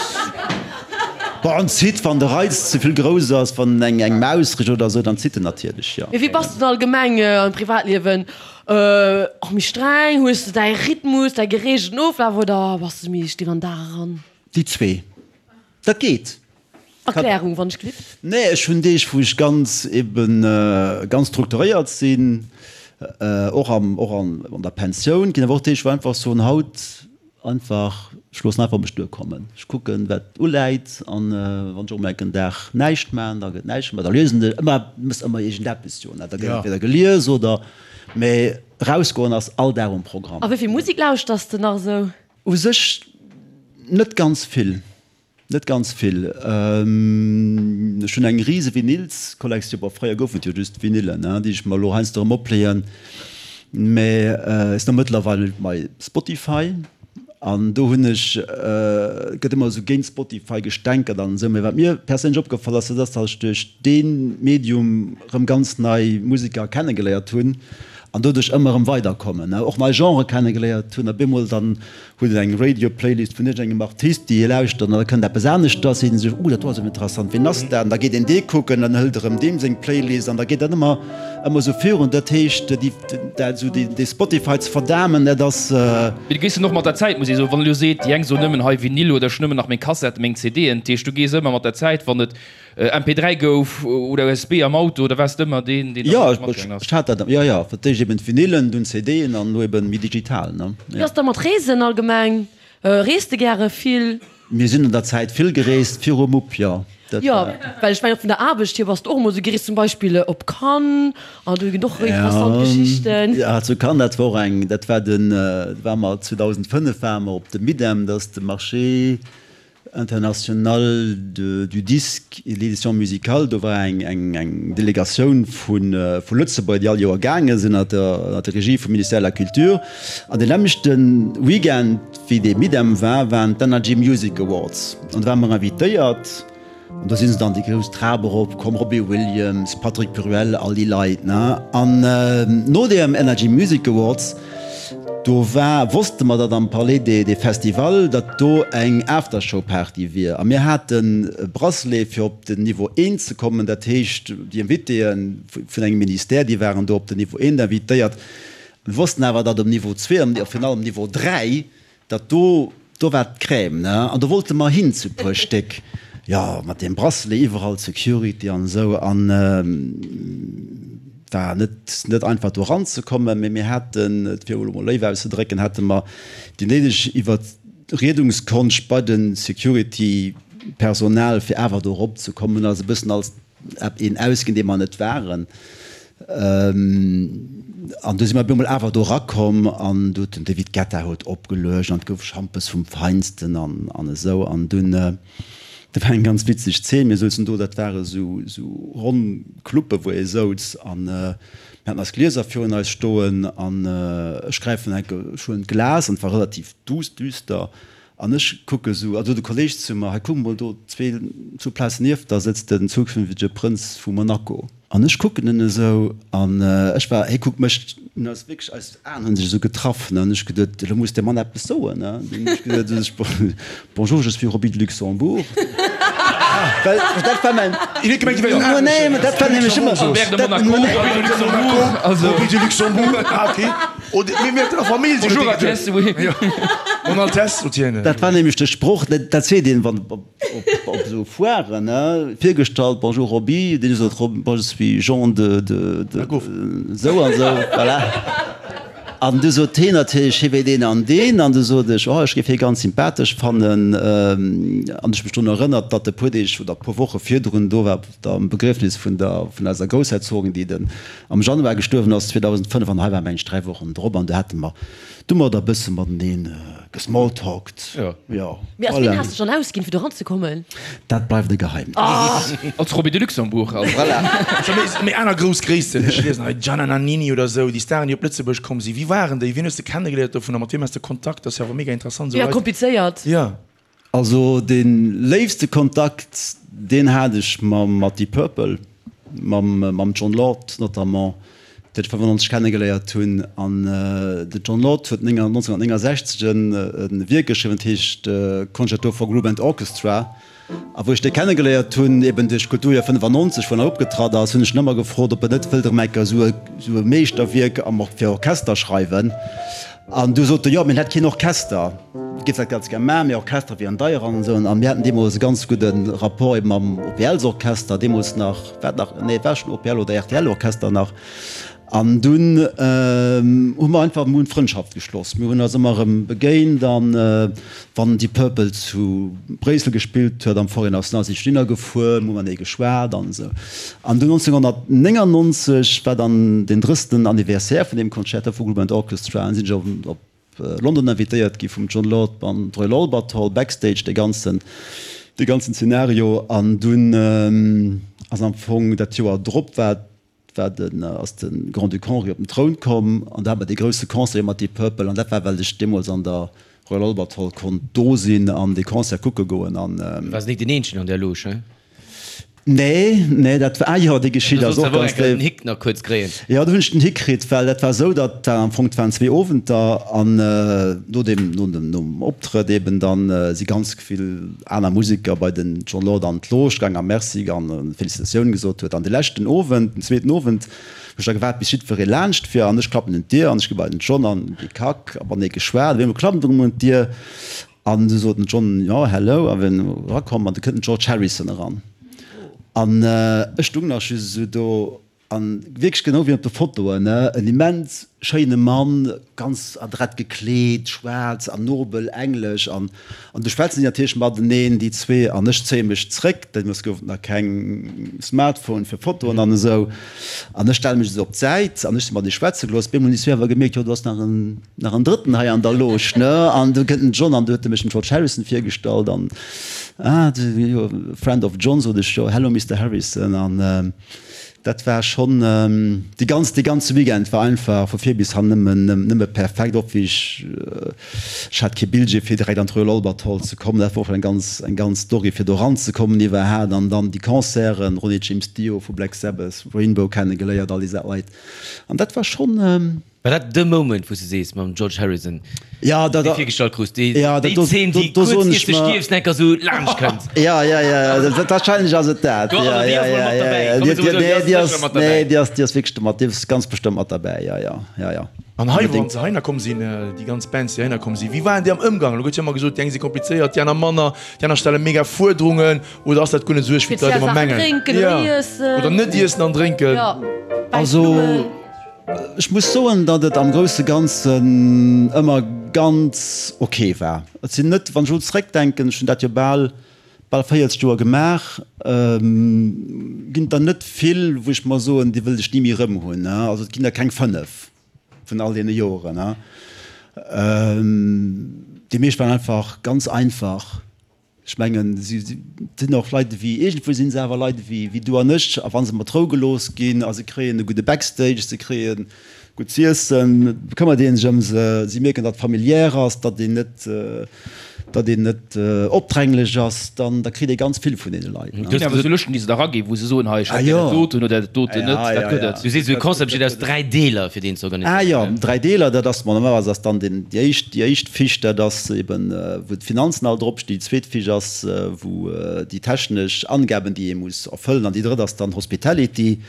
bon, en zitt, wann de Reiz ze vill grouss ass, wann en eng Maus richt oder esou, dann zitt en natierlech, jo. Mee wéi bass du dann allgemeng am Privatliewen? Och méi streng? Hues de däi Rhythmus, däi gereegelten Oflaf oder bass de méi still an den Dag eran? Déi zwee. Dat geet. Erklärung, wann ech glift. Nee, ech hunn Deeg, wou ech ganz eben ganz strukturéiert sinn, och am, och an der Pensioun. Et ginn awer och Deeg, wou einfach soen, haut einfach, ech loossen einfach op mech duerkommen. Ech kucken, wat uläit an wann ech och mol enk en Dag näischt maachen, da gëtt näischt gemaach. Da liesen ech ëmmer, mëss ëmmer iergendeppes jo, ne, da gëtt entweder gelies oder, mee erausgoen ass all Dag um Programm. A wéi vill Musek lauschters de nach esou? U sech net ganz vill. Net ganz vill. Ech hunn eng rise Vinylskollektioun, bon fréier goufen et jo just Vinylen, déi ech mer elo heiansdo erëm opleeën, mä ech sinn och mëttlerweil bei Spotify an do hunn ech, et gëtt ëmmer esou géint Spotify gestänkert an esou, mä wat mir perséinlech opgefall ass, dat ass, datt ech duerch dee Medium erëm ganz nei Museker kennegeléiert hunn an doduerch ëmmer erëm weiderkommen, och nei Genrë kennegeléiert hunn a bemol dann Huet een eng Radio-Playlist vun iergendengem Artist, déi ee lauschtert, an da kënnt eppes aneschters, seet ee sech, Oh, dat do ass awer interessant, ween ass dat? An da geet een dee kucken, dann hëlt erëm deem seng Playlist an da geet dat ëmmer, ëmmer esou virun. Dat heescht, déi, dat esou dee, dee Spotify ze verdamen, dat ass. Mee du gees dann och mat der Zäit, muss ee soen. Wann e lo seet, déi eng soen nëmmen hei Vinyl oder ech nëmmen nach meng Kassetten, meng CDen, dat heescht, du gees ëmmer mat der Zäit, wann et MP3 gouf oder USB am Auto, da waars de ëmmer deen, deen Jo, da matgaangen ass. ech hat dat, jo, jo, fir d'éischt eben d'Vinylen, dunn d'CDen an elo eben méi digital, ne? Wéi ass da mat Reesen allgemeng? Reest de gäre vill? Mir sinn an der Zäit vill gereest, virum Mupp, jo. Dat Jo, war. well ech mengen och vun der Aarbecht hier bass de och emol esou gereest, zum Beispill op Cannes, an do ginn och interessant Geschichten. Ja, zu Cannes, dat war och eng, dat war den, do ware mer 2005 ware mer op dem Midem, dat ass de Marché international de, du disque et de l'édition musicale. Do war eng, eng, eng Delegatioun vu, vu Lëtzebuerg, déi all Joer gaange sinn, ënner der, ënner der Regie vum Ministère de la Culture. An deen nämmlechte Weekend, wéi dee Midem war, waren d'Energy Music Awards. An do ware mer invitéiert. An do si se dann déi grouss Trap erop komm, Robbie Williams, Patrick Bruel, all déi Leit, ne. An no deem Energy Music Awards, do war, wosste mer, datt am Palais des Festivals, datt do eng Aftershow-Party wier. A mir haten e Bracelet, fir op den Niveau eent ze kommen. Dat heescht, déi Invitéë vun engem Ministère, déi waren do op den Niveau eent invitéiert. Mir wossten awer, datt um Niveau zwee an virun allem Niveau 3, datt do, do war d'Crème, ne? An do wollte mer hin zu puer Stéck, jo, mat deem Bracelet, iwwerall Security an esou. An war net, net einfach do eranzekommen, mee mir haten, et fir elo mol léif auszedrécken, hate mer déi néideg Iwwerriedungskonscht bei de Security-Personal, fir awer do eropzekommen. Hunn eis e bëssen als een ausginn, dee mer net waren. An du si mer op eemol awer do erakomm an du huet den David Guetta huet opgeluecht an et gouf Schampes vum Feinsten an an esou. An dunn, dat war eng ganz witzeg Zeen, mir souzen do, dat ware sou sou ronn Cluppe wou ee souz an mir haten eis Glieser virun eis stoen an ech gräifen enke, ech huelen d'Glas an et war relativ duuss, düster An ech kucke sou, a sot e Kolleg zu mer, hei kuck mol do, zwee, zwou Plazen nieft der sëtzt den zukünftege Prënz vu Monaco. An ech kucken en esou, an ech war, hie kuckt mech, hunn eis wierklech, eis Aen hu sech esou getraff, ne, an ech geduet, elo muss dee Mann eppes soen, ne. Dunn hunn ech geduet, ech, Bonjour, je suis Roby de Luxembourg. Well dat war mäin, Hien huet gemengt, hie wär en nee, mä dat war nämlech ëmmer, Albert de dat, Monaco, Roby de Luxembourg, also. Roby de Luxembourg, ah okay. Bonjour Altesse, oui. Mon Altesse, sot hien. Dat war nämlech de Sproch, dat seet een, wann op esou Foiren, ne, virgestallt, Bonjour Roby, deen sot, Bon, je suis Jean de, de, de, esou an esou, voilà. An du sot heen natierlech, hie wier deen an deen, an du sot ech, oh, ech géif hie ganz sympathesch fannen. An ech hu mech drun erënnert, datt e puer Deeg oder e puer Woche virdrun do war op der Begriefnis vun der, vun eiser Groussherzogin, déi den am Januar gestuerwen ass 2005 an hei war mengen ech 3 Wochen drop an do hate mer du mer da bësse mateneen gesmalltalkt. Jo. Jo, Mee als wien voilà. has de dech dann ausginn fir do ranzekommen? Dat bleift e Geheimnis. Als Roby de Luxembourg also. Voilà. Scho méi, méi aner grouss Gréissten, ech liesen hei Gianna Nannini oder esou, déi Staren déi op Lëtzebuerg komm sinn, wie waren déi, wien hues de kennegeléiert dovunner, mat wiem has de Kontakt, dat ass jo awer mega interessant esou Jo, Leit. komplizéiert. Jo. Also dee léifste Kontakt, deen hat ech mam mat Deep Purple, mam mam Jon Lord notamment, deen ech 95 kennegeléiert hunn. An de Jon Lord huet 1969 en e Wierk geschriwwen, dat heescht Concerto for Group and Orchestra. A wou ech dee kennegeléiert hunn, eben duerch d'Kulturjoer 95, wou en hei opgetratt ass, hunn ech en ëmmer gefrot, ob en net wëllt erëm eng Kéier esou e esou e Meeschterwierk am fir Orchester schreiwen. An du sot e, jo, mir hätt keen Orchester, géif dat ganz gär maachen, mee Orchester wieren deier an esou. A mir haten deemools e ganz gudde Rapport ebe mam OPL-Orchester, deemools nach, war nach, nee, et war schonn OPL oder RTL-Orchester nach. An dunn hu mer einfach, mir hunn Frëndschaft geschloss, mir hunn eis ëmmer erëm begéint an wann Deep Purple zu Bréissel gespillt huet, am Forêt Nationale, sinn ech dohinner gefuer, mir hu matenee geschwat an esou. An dunn 1999 war dann den 30. Anniversaire vun deem Concerto vu Group and Orchestra an sinn ech op London invitéiert gi vum Jon Lord an d'Royal Albert Hall, Backstage dee ganzen, dee ganzen Szenario. An dunn ass am Fong dat Joer drop war, war den, ass de Grand-Duc Henri op den Troun komm an da hat mer dee grousse Concert mat Deep Purple an dat war well ech deemools an der Royal Albert Hall konnt do sinn an dee Concert kucke goen an. Du waars nik den eenzegen an där Loge, he? Nee, nee, dat war, ah jo, déi Geschicht ass och ganz déif. Den déif. Hick nach kuerz kréien. Jo, do hunn ech den Hick kritt, well dat war esou, datt war am Fong, et waren zwee Owenter an no deem, no dem, nom Optrëtt eben dann si ganz vill aner Museker bei den Jon Lord an d'Loge gaang a Merci an Felicitatioun gesot huet. An de leschten Owend, den zweeten Owend, hu ech da gewaart bis jiddweree laanscht wier an ech klappen un d'Dier an ech gi bei den Jon an déi Kack a matenee geschwat. Op eemol klappt et erëm un d'Dier An du sot den John, jo, hello, a wien erakomm, an du kënnt den George Harrison eran. An ech stung nach just esou do. An wierklech genau wéi op de Fotoen, ne, en immens schéine Mann, ganz adrett gekleet, schwaarz an nobel, englesch. An, an du schwätzen si natierlech mateneen, déi zwee, an ech zéie mech zréck, deemools gouf et nach keng Smartphone fir Fotoen an esou, an ech stelle mech esou op d'Säit an ech si mat ee schwätze gelooss. Op eemol hunn déi zwee awer gemierkt, jo do ass nach en, nach en Drëtten hei an der Loge, ne, an du kënnt den John an du huet e mech dem George Harrison virgestallt an, ah, du, jo, friend of John, sot ech, jo, hello Mister Harrison an. Dat war schonn, déi ganz, dee ganze Weekend war einfach vu vir bis han nëmmen, nëmme perfekt. Och wéi ech, ech hat kee Billjee fir direkt an d'Royal Albert Hall ze kommen, dat war och eng ganz, eng ganz Story fir do eranzekommen iwwerhaat. An dann déi Concerten, Ronnie James Dio vu Black Sabbath, Rainbow kennegeléiert, all déi Leit. An dat war schonn. War dat de Moment, wou s de sees, mam George Harrison, Ja, dat, dee virgestallt krus, déi, ja, déi dat, do, Zeen, do, déi do kuerz soen iert ech de mer. stierfs enker sou laanscht kënnt? Ja, ja, ja, ja, dat, wahrscheinlech ass et dat. Do, also Ja, déi ja, ass mol ja, mat ja, derbäi. ja. Komm, Déi, soe déi, mol sou, déi nee, déi ass ass, sécher mat nee, derbäi. déi ass, déi ass wierklech mat, déi ass ganz bestëmmt mat derbäi, ja, ja, ja, ja. An hei, wann Unbedéngt. se heihinner komm sinn, déi ganz Bands, déi heihinner komm sinn, wéi waren déi am Ëmgang? Elo gëtt jo ëmmer gesot, déi eng si komplizéiert, déi aner manner, déi aner stelle mega Fuerderungen. Oder ass dat guer net esou uerg, wéi d'Leit Speziell ëmmer Saachen mengen? drénken oder Ja. iessen. Oder net iessen an drénken. Ja, wäiss Also. Blummen. Ech muss soen, datt et am grousse Ganzen ëmmer ganz ok war. Et sinn net, wann ech elo zeréckdenken, ech hunn dat jo bal, bal 40 Joer gemaach, ginn et der net vill, wou ech mer soen, déi wëllt ech ni méi erëm hunn. Also et ginn der keng 5 vun all deene Joren. Déi meescht waren einfach ganz einfach. Ech mengen, si sinn och Leit ewéi, iergendwou si se awer Leit ewéi wéi du an ech. A wa se mat Rou gelooss ginn a se kréien e gudde Backstage, se kréie gutt z'iessen, bekëmmert ee sech ëm se, si mierken, datt et familiär ass, datt een net, datt een net opdränglech ass, dann da kritt ee ganz vill vun deene Leit. Et ginn awer esou Lëschten, déi se da eraginn, wou se soen, hei, ech hätt gär dat doten oder dat doten net. Dat gëtt et. Du sees, esou e Concept besteet aus 3 Deeler, fir deen ze organiséieren. Ah jo, 3 Deeler, dat ass, normalerweis ass dann deen, déi éischt, déi éischt Fiche, dat ass eben, wou d'Finanzen all dropstinn, déi zweet Fiche ass, wou déi technesch Angaben, déi ee muss erfëllen, an déi drëtt ass dann Hospitality.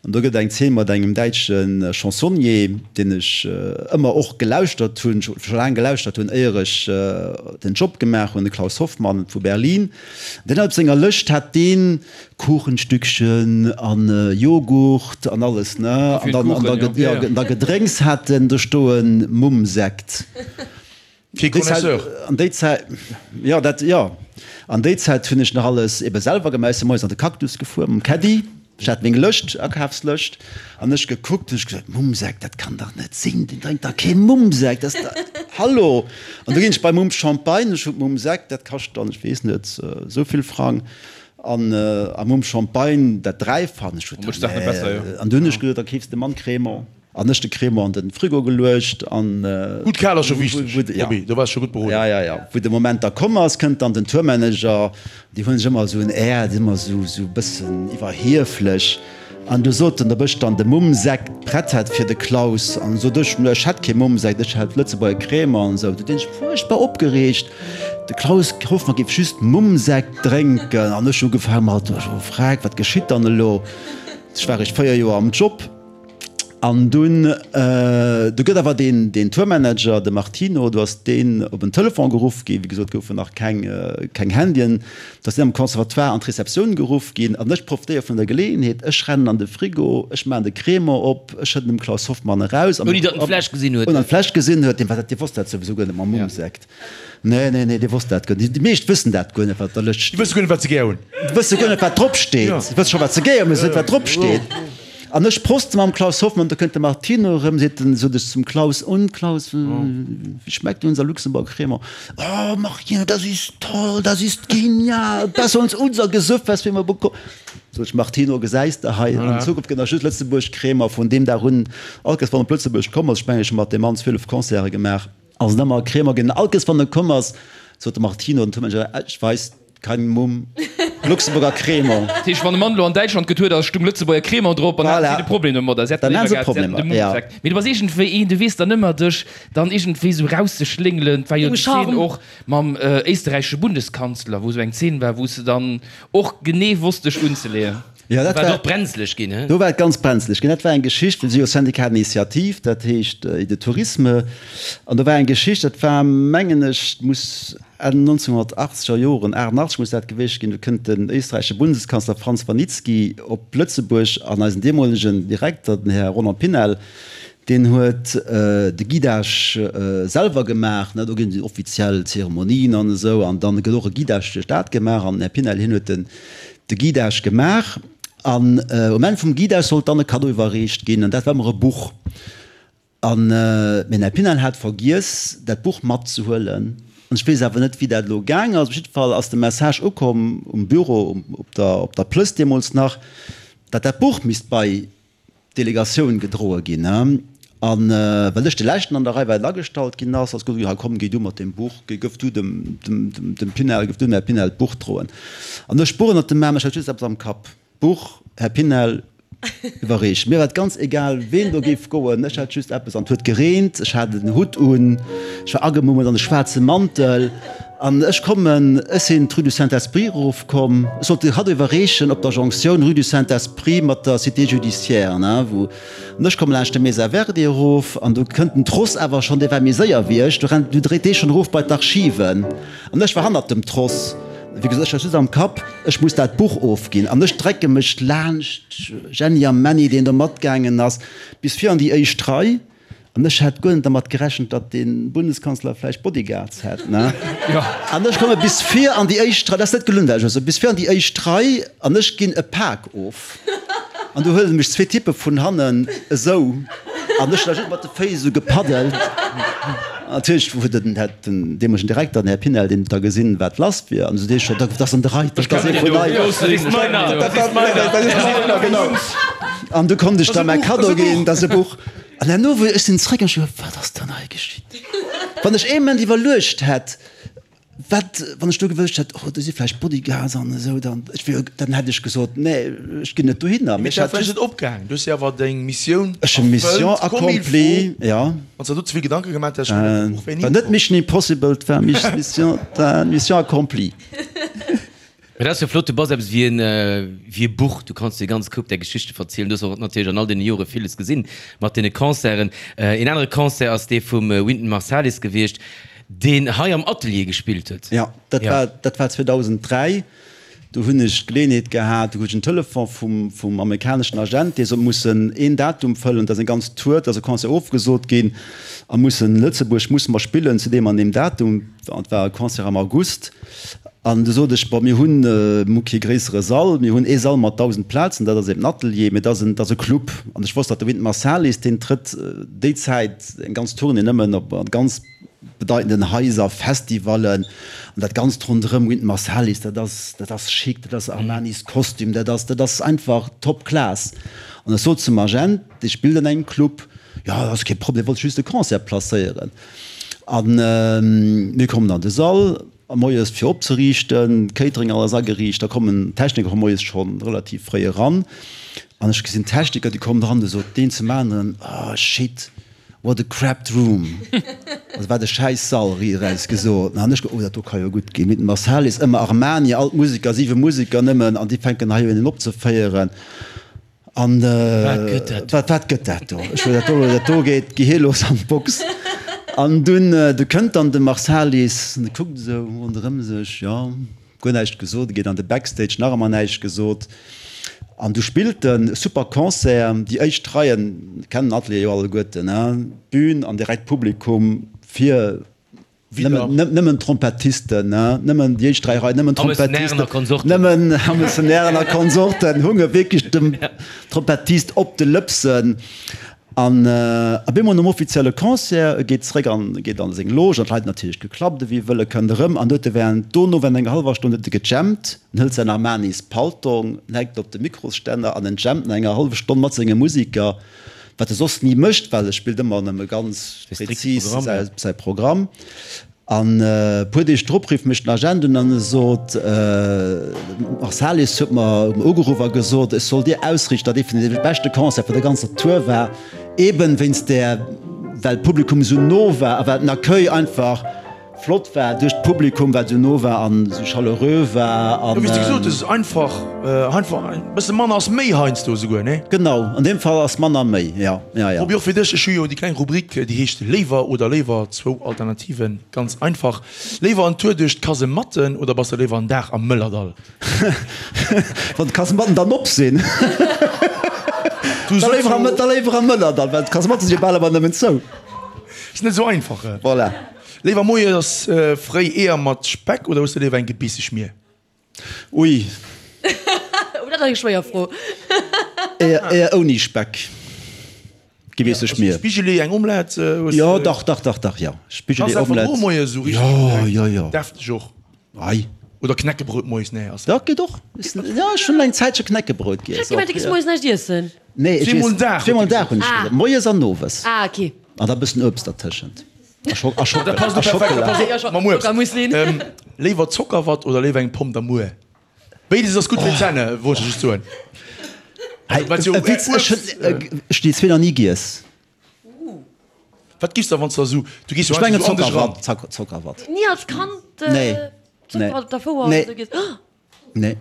An do gëtt et eng Zeen mat engem däitsche Chansonnier, deen ech ëmmer och gelauschtert hunn, scho laang gelauschtert hunn, éier ech den Job gemaach hunn, de Klaus Hoffmann vu Berlin. Deen hat op senger Lëscht hat deen Kuchenstückchen an Joghurt an alles, ne? An dann, an da Gedrénks hat en do stoen, Mumm-Sekt. Fir Connaisseur. An déi Zäit, jo, dat, jo. An déi Zäit hunn ech nach alles ebe selwer gemaach. Ech si moies an de Cactus gefuer mam Caddy. Ech hat meng Lëscht, Akafslëscht, an ech gekuckt hunn ech gesot, Mummsekt, dat kann dach net sinn, deen drénkt dach kee Mummsekt, dat ass dach, hallo! An du ginn ech bei Mumm Champagne, ech hunn Mummsekt, dat kascht dann, ech weess net, esou vill Frang, an a Mumm Champagne dat Dräifachen, ech huet, nee, an du hunn ech gesot, da keefs de Mann Crémant. An ech de Crémant an den Frigo geluecht an. Gutt kal ass scho wichteg, Roby, do waars scho gutt beroden. Ja, ja, ja. Wou de Moment da komm ass, kënnt dann den Tourmanager, déi hunn sech ëmmer esou en Air, déi sinn ëmmer esou, esou e bëssen iwwerhieflech. An du sot en, ob ech dann de Mummsekt prett hätt fir de Klaus. An sot ech, ech hätt kee Mummsekt, ech hätt Lëtzebuerger Crémant an esou. Du deen sech fuerchtbar opgereegt, de Klaus Hoffmann géif just Mummsekt drénken. An ech ugefaange mat, oh freck, wat geschitt dann elo? Ech war eréischt 4 Joer am Job. An dunn, du gëtt awer deen, deen Tourmanager, de Martino, do ass deen op en Telefon geruff ginn, wéi gesot goufen nach keng, keng Handyen, do ass deen am Conservatoire an d'Receptioun geruff ginn. An ech profitéiere vun der Geleeënheet, ech rennen an de Frigo, ech maachen de Crémant op, ech schëdden dem Klaus Hoffmann eraus. Ouni datt en d'Fläsch gesinn huet. Ouni datt en d'Fläsch gesinn huet, deen war dat, dee wosst dat souwisou guer net mam Mummsekt. Nee, nee, nee, dee wosst dat guer net. Déi meescht wëssen dat guer net, wat op der Lëscht steet. Déi wësse guer net, wat se gär hunn. Déi wësse guer net, wat drop steet. Se wësse scho, wat se gär hunn, mee se wëssen net, wat drop steet. An ech proste mam Klaus Hoffmann, da kënnt de Martino erëm, seet en, sot ech zum Klaus, Und, Klaus, wie schmeckt unser Luxemburger Crémant? Oh, Martino, das ist toll, das ist genial, besser als unser Gesöff, was wir immer bekommen. Sot ech, Martino, gesäis de hei, an Zukunft gëtt nach just Lëtzebuerg Crémant. Vun deem Dag un, all Kéiers, wann en op Lëtzebuerg komm ass, ech mengen, ech hu mat deem Mann 12 Concerte gemaach, Ass et ëmmer Crémant ginn. All Kéiers wann e komm ass, sot de Martino, den Tourmanager, Ech weis kein Mumm, Luxemburger Crémant. Dat heescht, wann e Mann elo an Däitschland gëtt huet, a stung Lëtzebuerger Crémant drop, an haten si de Problem domadder. Si hätten Dann léiwer haten se gehat, si hätten de Problemer, Mumm ja. gesagt. Mee du bass iergendwéi een, du weess dann ëmmer dech dann iergendwéi esou rauszeschléngelen. Et war jo Dengem déi Zeen Charme. och mam éisterräichesche Bundeskanzler, wou esou eng Zeen war, wou s de dann och genee wosst dech unzeleeën. Jo, dat war war et och brenzlech ginn, he? Do war et ganz brenzlech ginn. Dat war eng Geschicht, well si jo Syndicat d'initiative, dat heescht et de Tourisme, an do war eng Geschicht, dat war, mengen ech, muss Enn 1980 er Joren, 88 muss dat gewiescht ginn, do kënnt den éisträichesche Bundeskanzler Franz Vranitzky op Lëtzebuerg an eisen deemolegen Direkter, den Här Roland Pinel, deen huet de Guidage selwer gemaach, ne, do ginn déi offiziell Zeremonien an esou, an dann gëtt och e Guidage duerch d'Stad gemaach an den Här Pinel, hien huet den de Guidage gemaach an um Enn vum Guidage sollt dann e Kaddo iwwerreecht ginn an dat war ëmmer e Buch. An den Här Pinel hat vergiess dat Buch matzehuelen an ech weess awer net wéi dat elo gaang ass. Op jidde Fall ass de Message ukomm um Büro op der op der Plëss deemools nach, datt dat Buch misst bei d'Delegatioun gedroe ginn. A well ech de leschten an der Rei war deen agestallt ginn ass, ass gesot ginn, hei komm géi du mat deem Buch, géi gëff du dem dem dem Pinel, gëff du dem Här Pinel d'Buch droen. An ech d'Buch ënnert dem Aarm, ech hat just eppes am Kapp, D'Buch, Här Pinel, iwwerreecht. Mir war et ganz egal, ween do géif goen, ech hat just eppes an. Et huet gereent, ech hat en Hutt un, ech war agemummelt an e schwaarze Mantel an ech kommen, ech sinn d'Rue du Saint-Esprit erofkomm, ech sollt de Kaddo iwwerreechen op der Jonctioun Rue du Saint-Esprit mat der Cité judiciaire, ne, wou, an ech komme laanscht de Mesa Verde erof an do kënnt den Tross awer schonn, dee war méi séier wéi ech, do rennt, du dréit dee schonn erof bei d'Archiven an ech war hannert dem Tross. Wéi gesot, ech hat just am Kapp, ech muss dat Buch ofginn an ech drecke mech laanscht Jenny a Menny, deen do matgaangen ass, bis vir an déi éischt Rei. An ech hat guer net dermat gerechent, datt de Bundeskanzler vläicht Bodyguards hätt, ne? An ech komme bis vir an déi éischt Rei, dat ass net gelunn, dat ech elo soen, bis vir an déi éischt Rei an ech ginn e Pak of. An du huele mech zwee Typpe vun hannen esou an ech hunn da just mat de Féiss esou gepaddelt. Natierlech huet den, hat den deemolegen Direkter, den Här Pinel, deen huet da gesinn, wat lass wier an esou dee scho, dat ass an de Rei, dat ass ee vun eis. Dat ass meiner, dat ass meiner, dat ass meiner, genau. An du konnt ech da mäi Kaddo ginn, dat ass e Buch. An herno, wou ech sinn zréck an ech hu geduecht, wat ass dann hei geschitt? Wann ech ee Moment iwwerluecht hätt, Wat, wann ech do gewëscht hätt, oh, do si vläicht Bodyguards an esou, dann, ech wier, dann hätt ech gesot, nee, ech ginn net dohinner. Mee et war vläicht net opgaangen. Du hues jo awer deng Missioun Ech hunn Mission erfëllt, comme il accomplie, faut. ja. Wann s de der do ze vill Gedanke gemaach häss, ech mengen, dat Buch wär ni War net komm. Mission Impossible, et war Mission, Mission accomplie. Mee dat ass jo flott, du bass eppes wéi en, wéi e Buch, du kanns dir e ganze Koup där Geschichte verzielen. Du hues och natierlech an all deene Jore villes gesinn mat deene Concerten. Een anere Concert ass dee vum Wynton Marsalis gewiescht, deen hei am Atelier gespillt huet. Jo, dat war, dat war 2003. Do hunn ech d'Geleeënheet gehat, do krut ech en Telefon vum, vum amerikaneschen Agent, dee sot, mussen een Datum fëllen, da ass eng ganz Tour, da ass e Concert ofgesot ginn a mussen Lëtzebuerg musse mer spillen zu deem an deem Datum. Et war e Concert am August. An du sot ech, bon, mir hunn, mir hu kee gréissere Sall, mir hunn ee Sall mat 1.000 Plazen, dat ass eben den Atelier, mee dat ass en, dat ass e Club. An ech wosst, datt de Wynton Marsalis, deen trëtt déi Zäit eng ganz Tournée nëmmen op ganz bedeitenden Haiser, Festivallen an dat Ganzt ronderëm Wynton Marsalis, dat ass, dat ass chic, dat ass Armanis Kostüm, dat ass, dat ass einfach top class. An ech sot zum Agent, dee spillt an engem Club, jo, dat ass kee Problem, wollt just de Concert placéieren. An mir kommen an de Sall. A moies fir opzeriichten, Catering alles ageriicht, da kommen d'Techniker moies schonn relativ fréi eran an ech gesinn d'Techniker, déi kommen eran, du sot deen zum aneren, oh shit, what a crapped room, also wat e schäiss Sall, riit eraus gesot. An ech, oh dat do ka jo gutt ginn, mit dem Marsalis, ëmmer Armani, all d'Museker, siwe Museker nëmmen an déi fänken hei un opzeféieren. An wat wat gëtt dat do? Ech dat do, dat do geet d'Gehier los an d'Box. An dunn du kënnt dann de Marsalis an e kuckt esou ronderëm sech, jo, guer näischt gesot, e geet an de Backstage, nach ëmmer näischt gesot. An du spillt en, super Concert, déi éischt Reien kennen den Atelier jo alleguerten, hein, d'Bün an direkt Publikum vir. Nëmmen Trompettisten, nëmmen déi éischt 3 Reien, nëmmen Trompettisten, nëmmen Hamesenären a Konsorten hunge wierklech dem Trompettist op de Lëpsen. An op eemol nom offizielle Concert, e geet zeréck an geet an seng Loge, an d'Leit natierlech geklappt ewéi wëll, e kënnt erëm an huet e während dono während enger hallwer Stonn huet e gejammt, en hëlt säin Armanis Paltong, en hänkt op de Mikrosstänner an en jammt no enger hallwer Stonn mat senge Musiker. Wat e soss ni mécht, well e spillt ëmmer nëmme ganz prezis säi Programm. An e puer Deeg drop rifft mech den Agent un an e sot, Marsalis huet mer ugeruff a gesot, ech soll dir ausriichten, datt ee vun de beschte Concerte vun der ganzer Tour war, eben wéinst där, well d'Publikum esou no war a well den Accueil einfach. flott war duerch d'Publikum, wat esou no war an esou chaleureux war an. Jo, wéi s de gesot hues, einfach, einfach e bësse manner ass méi heiansdo esouguer, nee? Genau, an deem Fall ass manner méi, jo, jo, jo. Roby, och fir dech, ech hu jo déi kleng Rubrik, déi heescht Léiwer oder léiwer, zwou Alternativen, ganz einfach. Léiwer en Tour duerch d'Kasematten oder bass de léiwer en Dag am Mëllerdall? Wann d'Kasematten dann op sinn, da léiwer am, da léiwer am Mëllerdall, well d'Kasematte si jo bal ëmmer nëmmen zou. Ass net esou einfach. Voilà. Léiwer moies fréi Eeër mat Speck oder hues de léiwer eng Gebeesseschmier? Ui. Oh, dat ass eng schwéier Fro. Eeër, Eeër ouni Speck. Gebeesseschmier. Spigeli, eng Omelette? Jo, dach, dach, dach, dach, jo. Spigeli, Omelette. Kanns moies esou richteg jo, jo, jo. Defteg och. Ei. Oder Knäckebrout moies, nee, ass. Dat geet och. Jo, ech hunn eng Zäitche Knäckebrout giess. Ech hat gemengt, du giss moies näischt iessen. Nee, ech iess zweemol den Dag hunn ech gesot. Moies an owes. Ah, ok. An da bëssen Uebst dertëschent. A Schockela. A Schockela. Mam Uebst. Léiwer Zockerwatt oder léiwer eng Pomm d'amour? Béides ass gutt fir d'Zänne, wollt ech just soen. Hey, e Witz, ech hunn ech déi zwee nach ni giess. Wat giffs da wann s de esou, du gees jo Ech mengen einfach esou an dech eran. Zockerwatt, Zockerwatt. Ni als Kand Nee, nee, Zockerwatt op der Fouer nee. oder sou giess? Nee,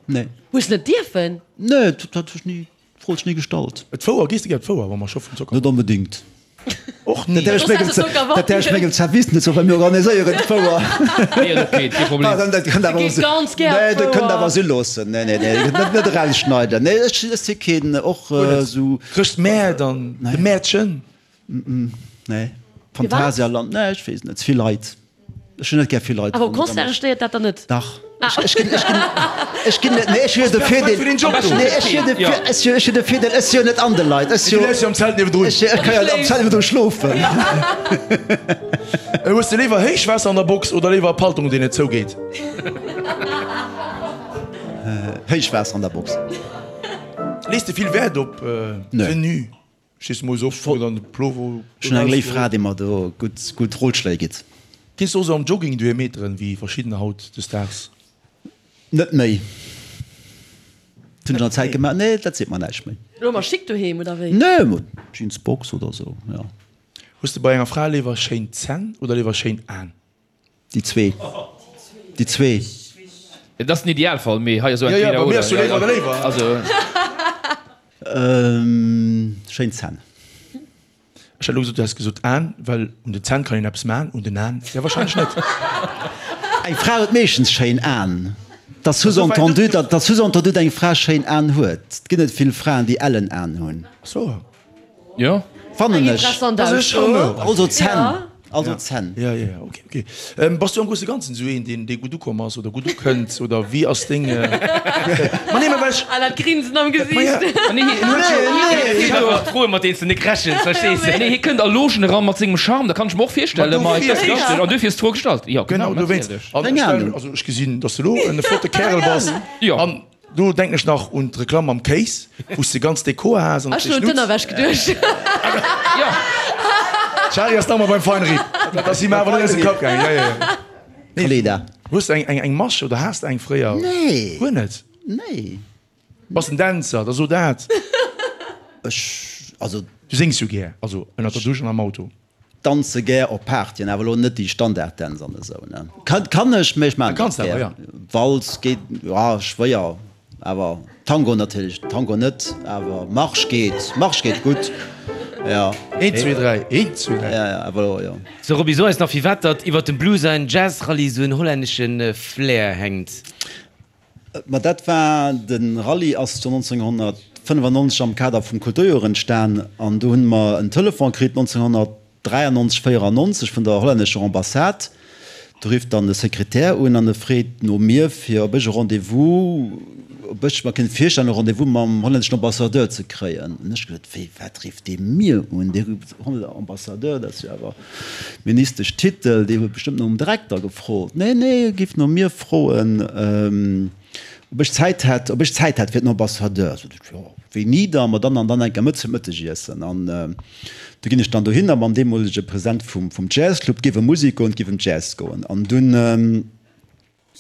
nee. Hues net dierfen? Nee, dat hu ech ni. D'Fro huet sech ni gestallt. D'Fouer, gees de gär op d'Fouer, wa mer scho vum Zocker. Net onbedéngt. Och ni. Dat däerf ech mengem, dat däerf ech mengem Service net soen, well mir organiséieren d'Fouer. Nee, ass ok, kee Problem. Dat kënnt awer, Geet ganz gär op nee, dat kënnt d'Fouer. awer si loossen. Nee, nee, nee, net, net erausschneiden. Nee, ech, ech si keen, och esou. Chrëschtmäert an de Mäertchen. Nee, Phantasialand, nee, ech weess net, ze vill Leit. Ech hunn net gär vill Leit. Awer op Concerte stéiert dat dann net? Dach. Ech ginn, ech ginn, ech ginn net, nee, ech hu jo de Virdeel, nee, ech hu jo de, ech hu, ech hu de Virdeel, ech si jo net an de Leit, ech si jo. Du läs jo am Zelt niewendrun. Ech, ech ka jo am Zelt niewendru schlofen. Hues de léiwer Héichwaasser an der Box oder léiwer e Paltong, deen net zougeet? Héichwaasser an der Box. Lees de vill Wäert op Tenue? Stees du moies op, wou dann de Plover Ech hunn eng léif Fra, déi mer do gutt, gutt Rotschléi gitt. Gees du och sou am Jogging doheem Meteren, wéi verschiddener haut des Daags? Net méi. Dat hunn ech an der Zäit gemaach. Nee, dat seet mer näischt méi. Elo ëmmer schick doheem, oder wéi? Nee, mat Jeansbox oder sou, jo. Hues de bei enger Fra léiwer schéin Zänn oder léiwer schéin Aen? Déi zwee. Déi zwee. Et ass den Idealfall, mee hei ass esou entweder oder. Jo, jo, bei mir ass jo léiwer oder léiwer. Also. Schéin Zänn. Ech hätt elo gesot, du häss gesot Aen, well un den Zänn kann een eppes man, un den Aen jo wahrscheinlech net. Eng Fra huet meeschtens schéin Aen. Dat ass sous-entendu, dat ass sous-entendu, datt eng Fra schéin Aen huet. Et ginn net vill Fraen, déi ellen Aen hunn. Ach so. Jo. Fannen ech. Interessant Ausso. Also Zänn. Also Zänn. Ja, ja, ja, okay, okay. Ähm, bass du am grousse Ganzen esou een, deen, dee gutt ukomm ass oder gutt ukënnt oder wéi ass deng. Ma nee, ma well ech. Ah, dat Grinsen am Gesiicht. Ma ja. Ma nee, hien huet jo. Nee, nee. Froe mat deenen s de net rechens, verstees de? Nee, hie kënnt a Logen eran mat sengem Charme, dat kann ech mer och virstellen. Ma et ass richteg, an duerfir ass d'Fro gestallt. Jo, genau, natierlech. Genau, dowéinst. An ech stellen, also ech gesinn, dass de elo en flotte Kärel bass. Jo. An Do denken ech nach un d'Reklamm mam Kéis, wou s de ganz Dekor has an op Ech hun un d'Ënnerwäsch geduecht. Jo. D'Shari ass nach emmer beim Feinripp. Dat ass him awer net aus dem Kapp gaangen. Jo, jo, jo. Kaleeda. Hues de eng, eng Masch oder has de eng fréier? Nee. Guer net? Nee. Bass en Dänzer, da so dat. Ech, also. Du séngs jo gär, also ënnert der Dusch an am Auto. Danze gär op Partyen, awer elo net déi Standarddänz an esou ne. Kann ech, mee ech maan et net gär. Walz geet, jo schwéier, awer Tango natierlech, Tango net, awer Marsch geet, Marsch geet gutt, jo. Eent, zwee, dräi, eent, zwee, dräi. Ja, ja, awer elo, jo. So Roby, so eis nach firwat datt iwwert dem Blues ein Jazz-Rallye sou en hollännesche Flair hänkt. Ma dat war, de Rallye ass jo 1995 am Kader vum Kulturjoer entstan an do hunn mer en Telefon kritt 1993, 94 vun der hollännescher Ambassade. Do rifft dann de Sekretär un an e freet no mir fir ob ech e Rendez-vous, ob ech mer kéint virstellen e Rendez-vous mam hollänneschen Ambassadeur ze kréien. An ech gesot, wéi wat rifft dee mir un, dee Ambassadeur, dat ass jo awer Ministesch Titel, Dir huet bestëmmt nom Direkter gefrot. Nee, nee, e géif no mir froen, ob ech Zäit hätt, ob ech Zäit hätt fir den Ambassadeur. Sot ech, jo, wéini da? Ma dann an dann enker Mëtt zum Mëttegiessen. An du ginn ech dann dohinner mam deemolege President vum, vum Jazzclub, et géif ëm Musek goen, et géif ëm Jazz goen. An dunn.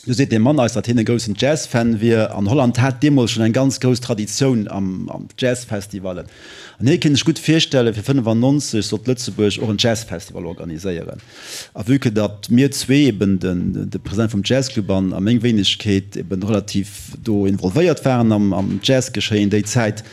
Du seet dee Mann eis, datt hien e groussen Jazz-Fan wier, an Holland hat deemools schonn eng ganz grouss Traditioun am Jazz-Festivalen. An hie kéint sech gutt virstellen, fir 95 sollt Lëtzebuerg och en Jazz-Festival organiséieren. A vue que datt mir zwee, eben de President vum Jazzclub an a meng Wéinegkeet, eben relativ do involvéiert waren am Jazz-Geschéien déi Zäit,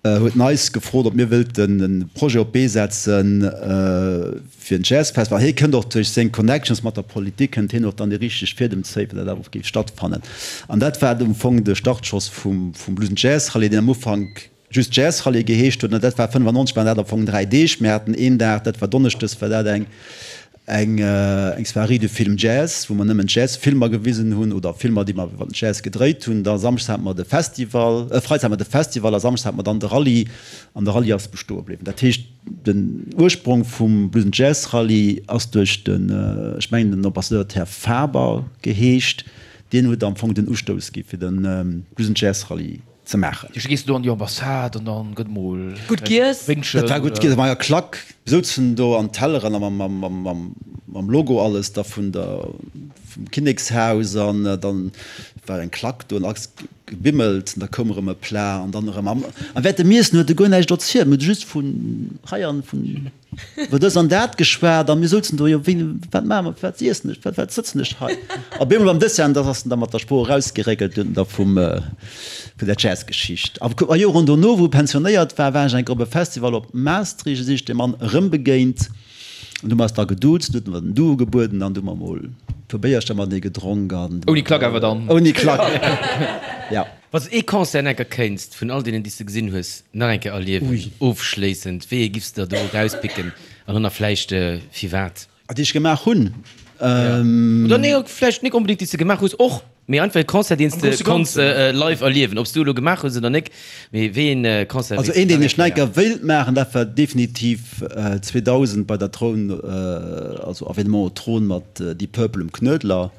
huet en eis gefrot, ob mir wëllten e Projet op d'Bee setzen fir en Jazzfestival. Hie kënnt och duerch seng Connections mat der Politik, kënnt hien och dann déi richteg Fiedem zéien, fir dat awer och géif stattfannen. An dat war am Fong de Startschoss vum Blues and Jazz Rallye, deen am Ufank just Jazz Rallye geheescht huet. An dat war 95 waren dat am Fong 3 Deeg. Mir haten een Dag, dat war donneschdes, war dat eng Eng eng Soirée de Film Jazz, wou mer nëmmen Jazz-Filmer gewisen hunn oder Filmer, déi mer iwwer den Jazz gedréit hunn. Da samschdes hate mer de Festival, äh, freides hate mer de Festival a samschdes hate mer dann de Rallye an de Rallye ass bestoe bliwwen. Dat heescht, den Ursprong vum Blues and Jazz Rallye ass duerch den, ech mengen den Ambassadeur huet Här Faber geheescht, deen huet am Fong den Ustouss gi fir de Blues and Jazz Rallye. ze maachen. Du gees do an déi Ambassade an dann gëtt mol Gutt giess. Wéngchen. Dat war gutt giess, war jo Klack. Mir souzen do an Telleren a mam Logo alles da vun der vum Kinnekshaus an dann war eng Klack do an alles gebimmelt an da koum erëm e Plat an dann erëm an während dem Iessen huet e guer näischt erzielt, mir hu just vun hei an vun Iwwer dës an dat geschwat a mir souzen do, jo wéi, wat maache mer, firwat iessen ech, firwat sëtzen ech hei? A bemol beim Dessert, an da ass en da mat der Sprooch erausgeréckelt hunn da vum, vun der Jazzgeschicht. A a Joren dono, wou e pensionéiert war, war ech eng Kéier op e Festival op Maastricht, do sinn ech deem Mann erëm begéint an du hu mer eis da geduuzt, huet en mer den Du ugebueden an du hu mer mol e puer Béiercher matenee gedronk an. Ouni Klack awer dann? Ouni Klack, ja. Wann s de ee Concert nach eng Kéier kéinst vun all deenen, déi s de gesinn hues, nach eng Kéier erliewen, ofschléissend, wéi ee giffs de der do erauspicken an dann nach vläicht firwat? Déi ech gemaach hunn? Oder nee, vläicht nik onbedéngt déi s de gemaach hues och, mee einfach ee Concert, deen s de konns live erliewen, ob s du elo gemaach hues oder nik, mee wéi een Concert Also wéilts een, de deen nach ech eng nach eng Kéier? Kéier wéilt maachen, dat war definitiv 2000 bei der Troun, also Avènement au Trône mat Deep Purple um Knuedler.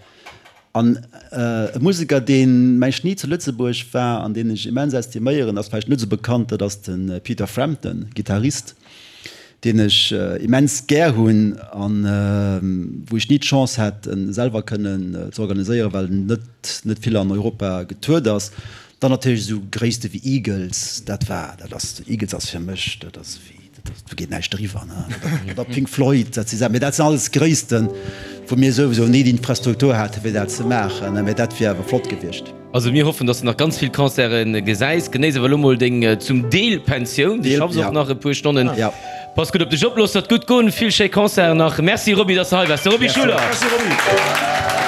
An e Museker, deen, mengen ech, ni zu Lëtzebuerg war an deen ech immens estiméieren, ass vläicht net esou bekannt, dat ass de Peter Frampton, Gittarist, deen ech immens gär hunn a wou ech ni d'Chance hat, en selwer kënnen ze organiséieren, well en net, net vill an Europa getourt ass. Dann natierlech esou Gréisste wéi Eagles, dat war, dat ass, Eagles ass fir mech, dat ass wéi, do geet näischt driwwer, ne? Oder Pink Floyd, dat si Saachen, mee dat sinn alles Gréissten, wou mir souwisou ni d'Infrastruktur hate fir dat ze maachen, ne? Mee dat wier awer flott gewiescht. Also mir hoffen, dass de nach ganz vill Concerte gesäis. Genéiss awer elo mol deng zum Deel Pensioun, du schaffs och nach e puer Stonnen. Pass gutt op dech op, looss der et gutt goen, vill schéi Concerten nach. Merci Roby, dass de hei waars. De Roby Schuler. Merci Roby.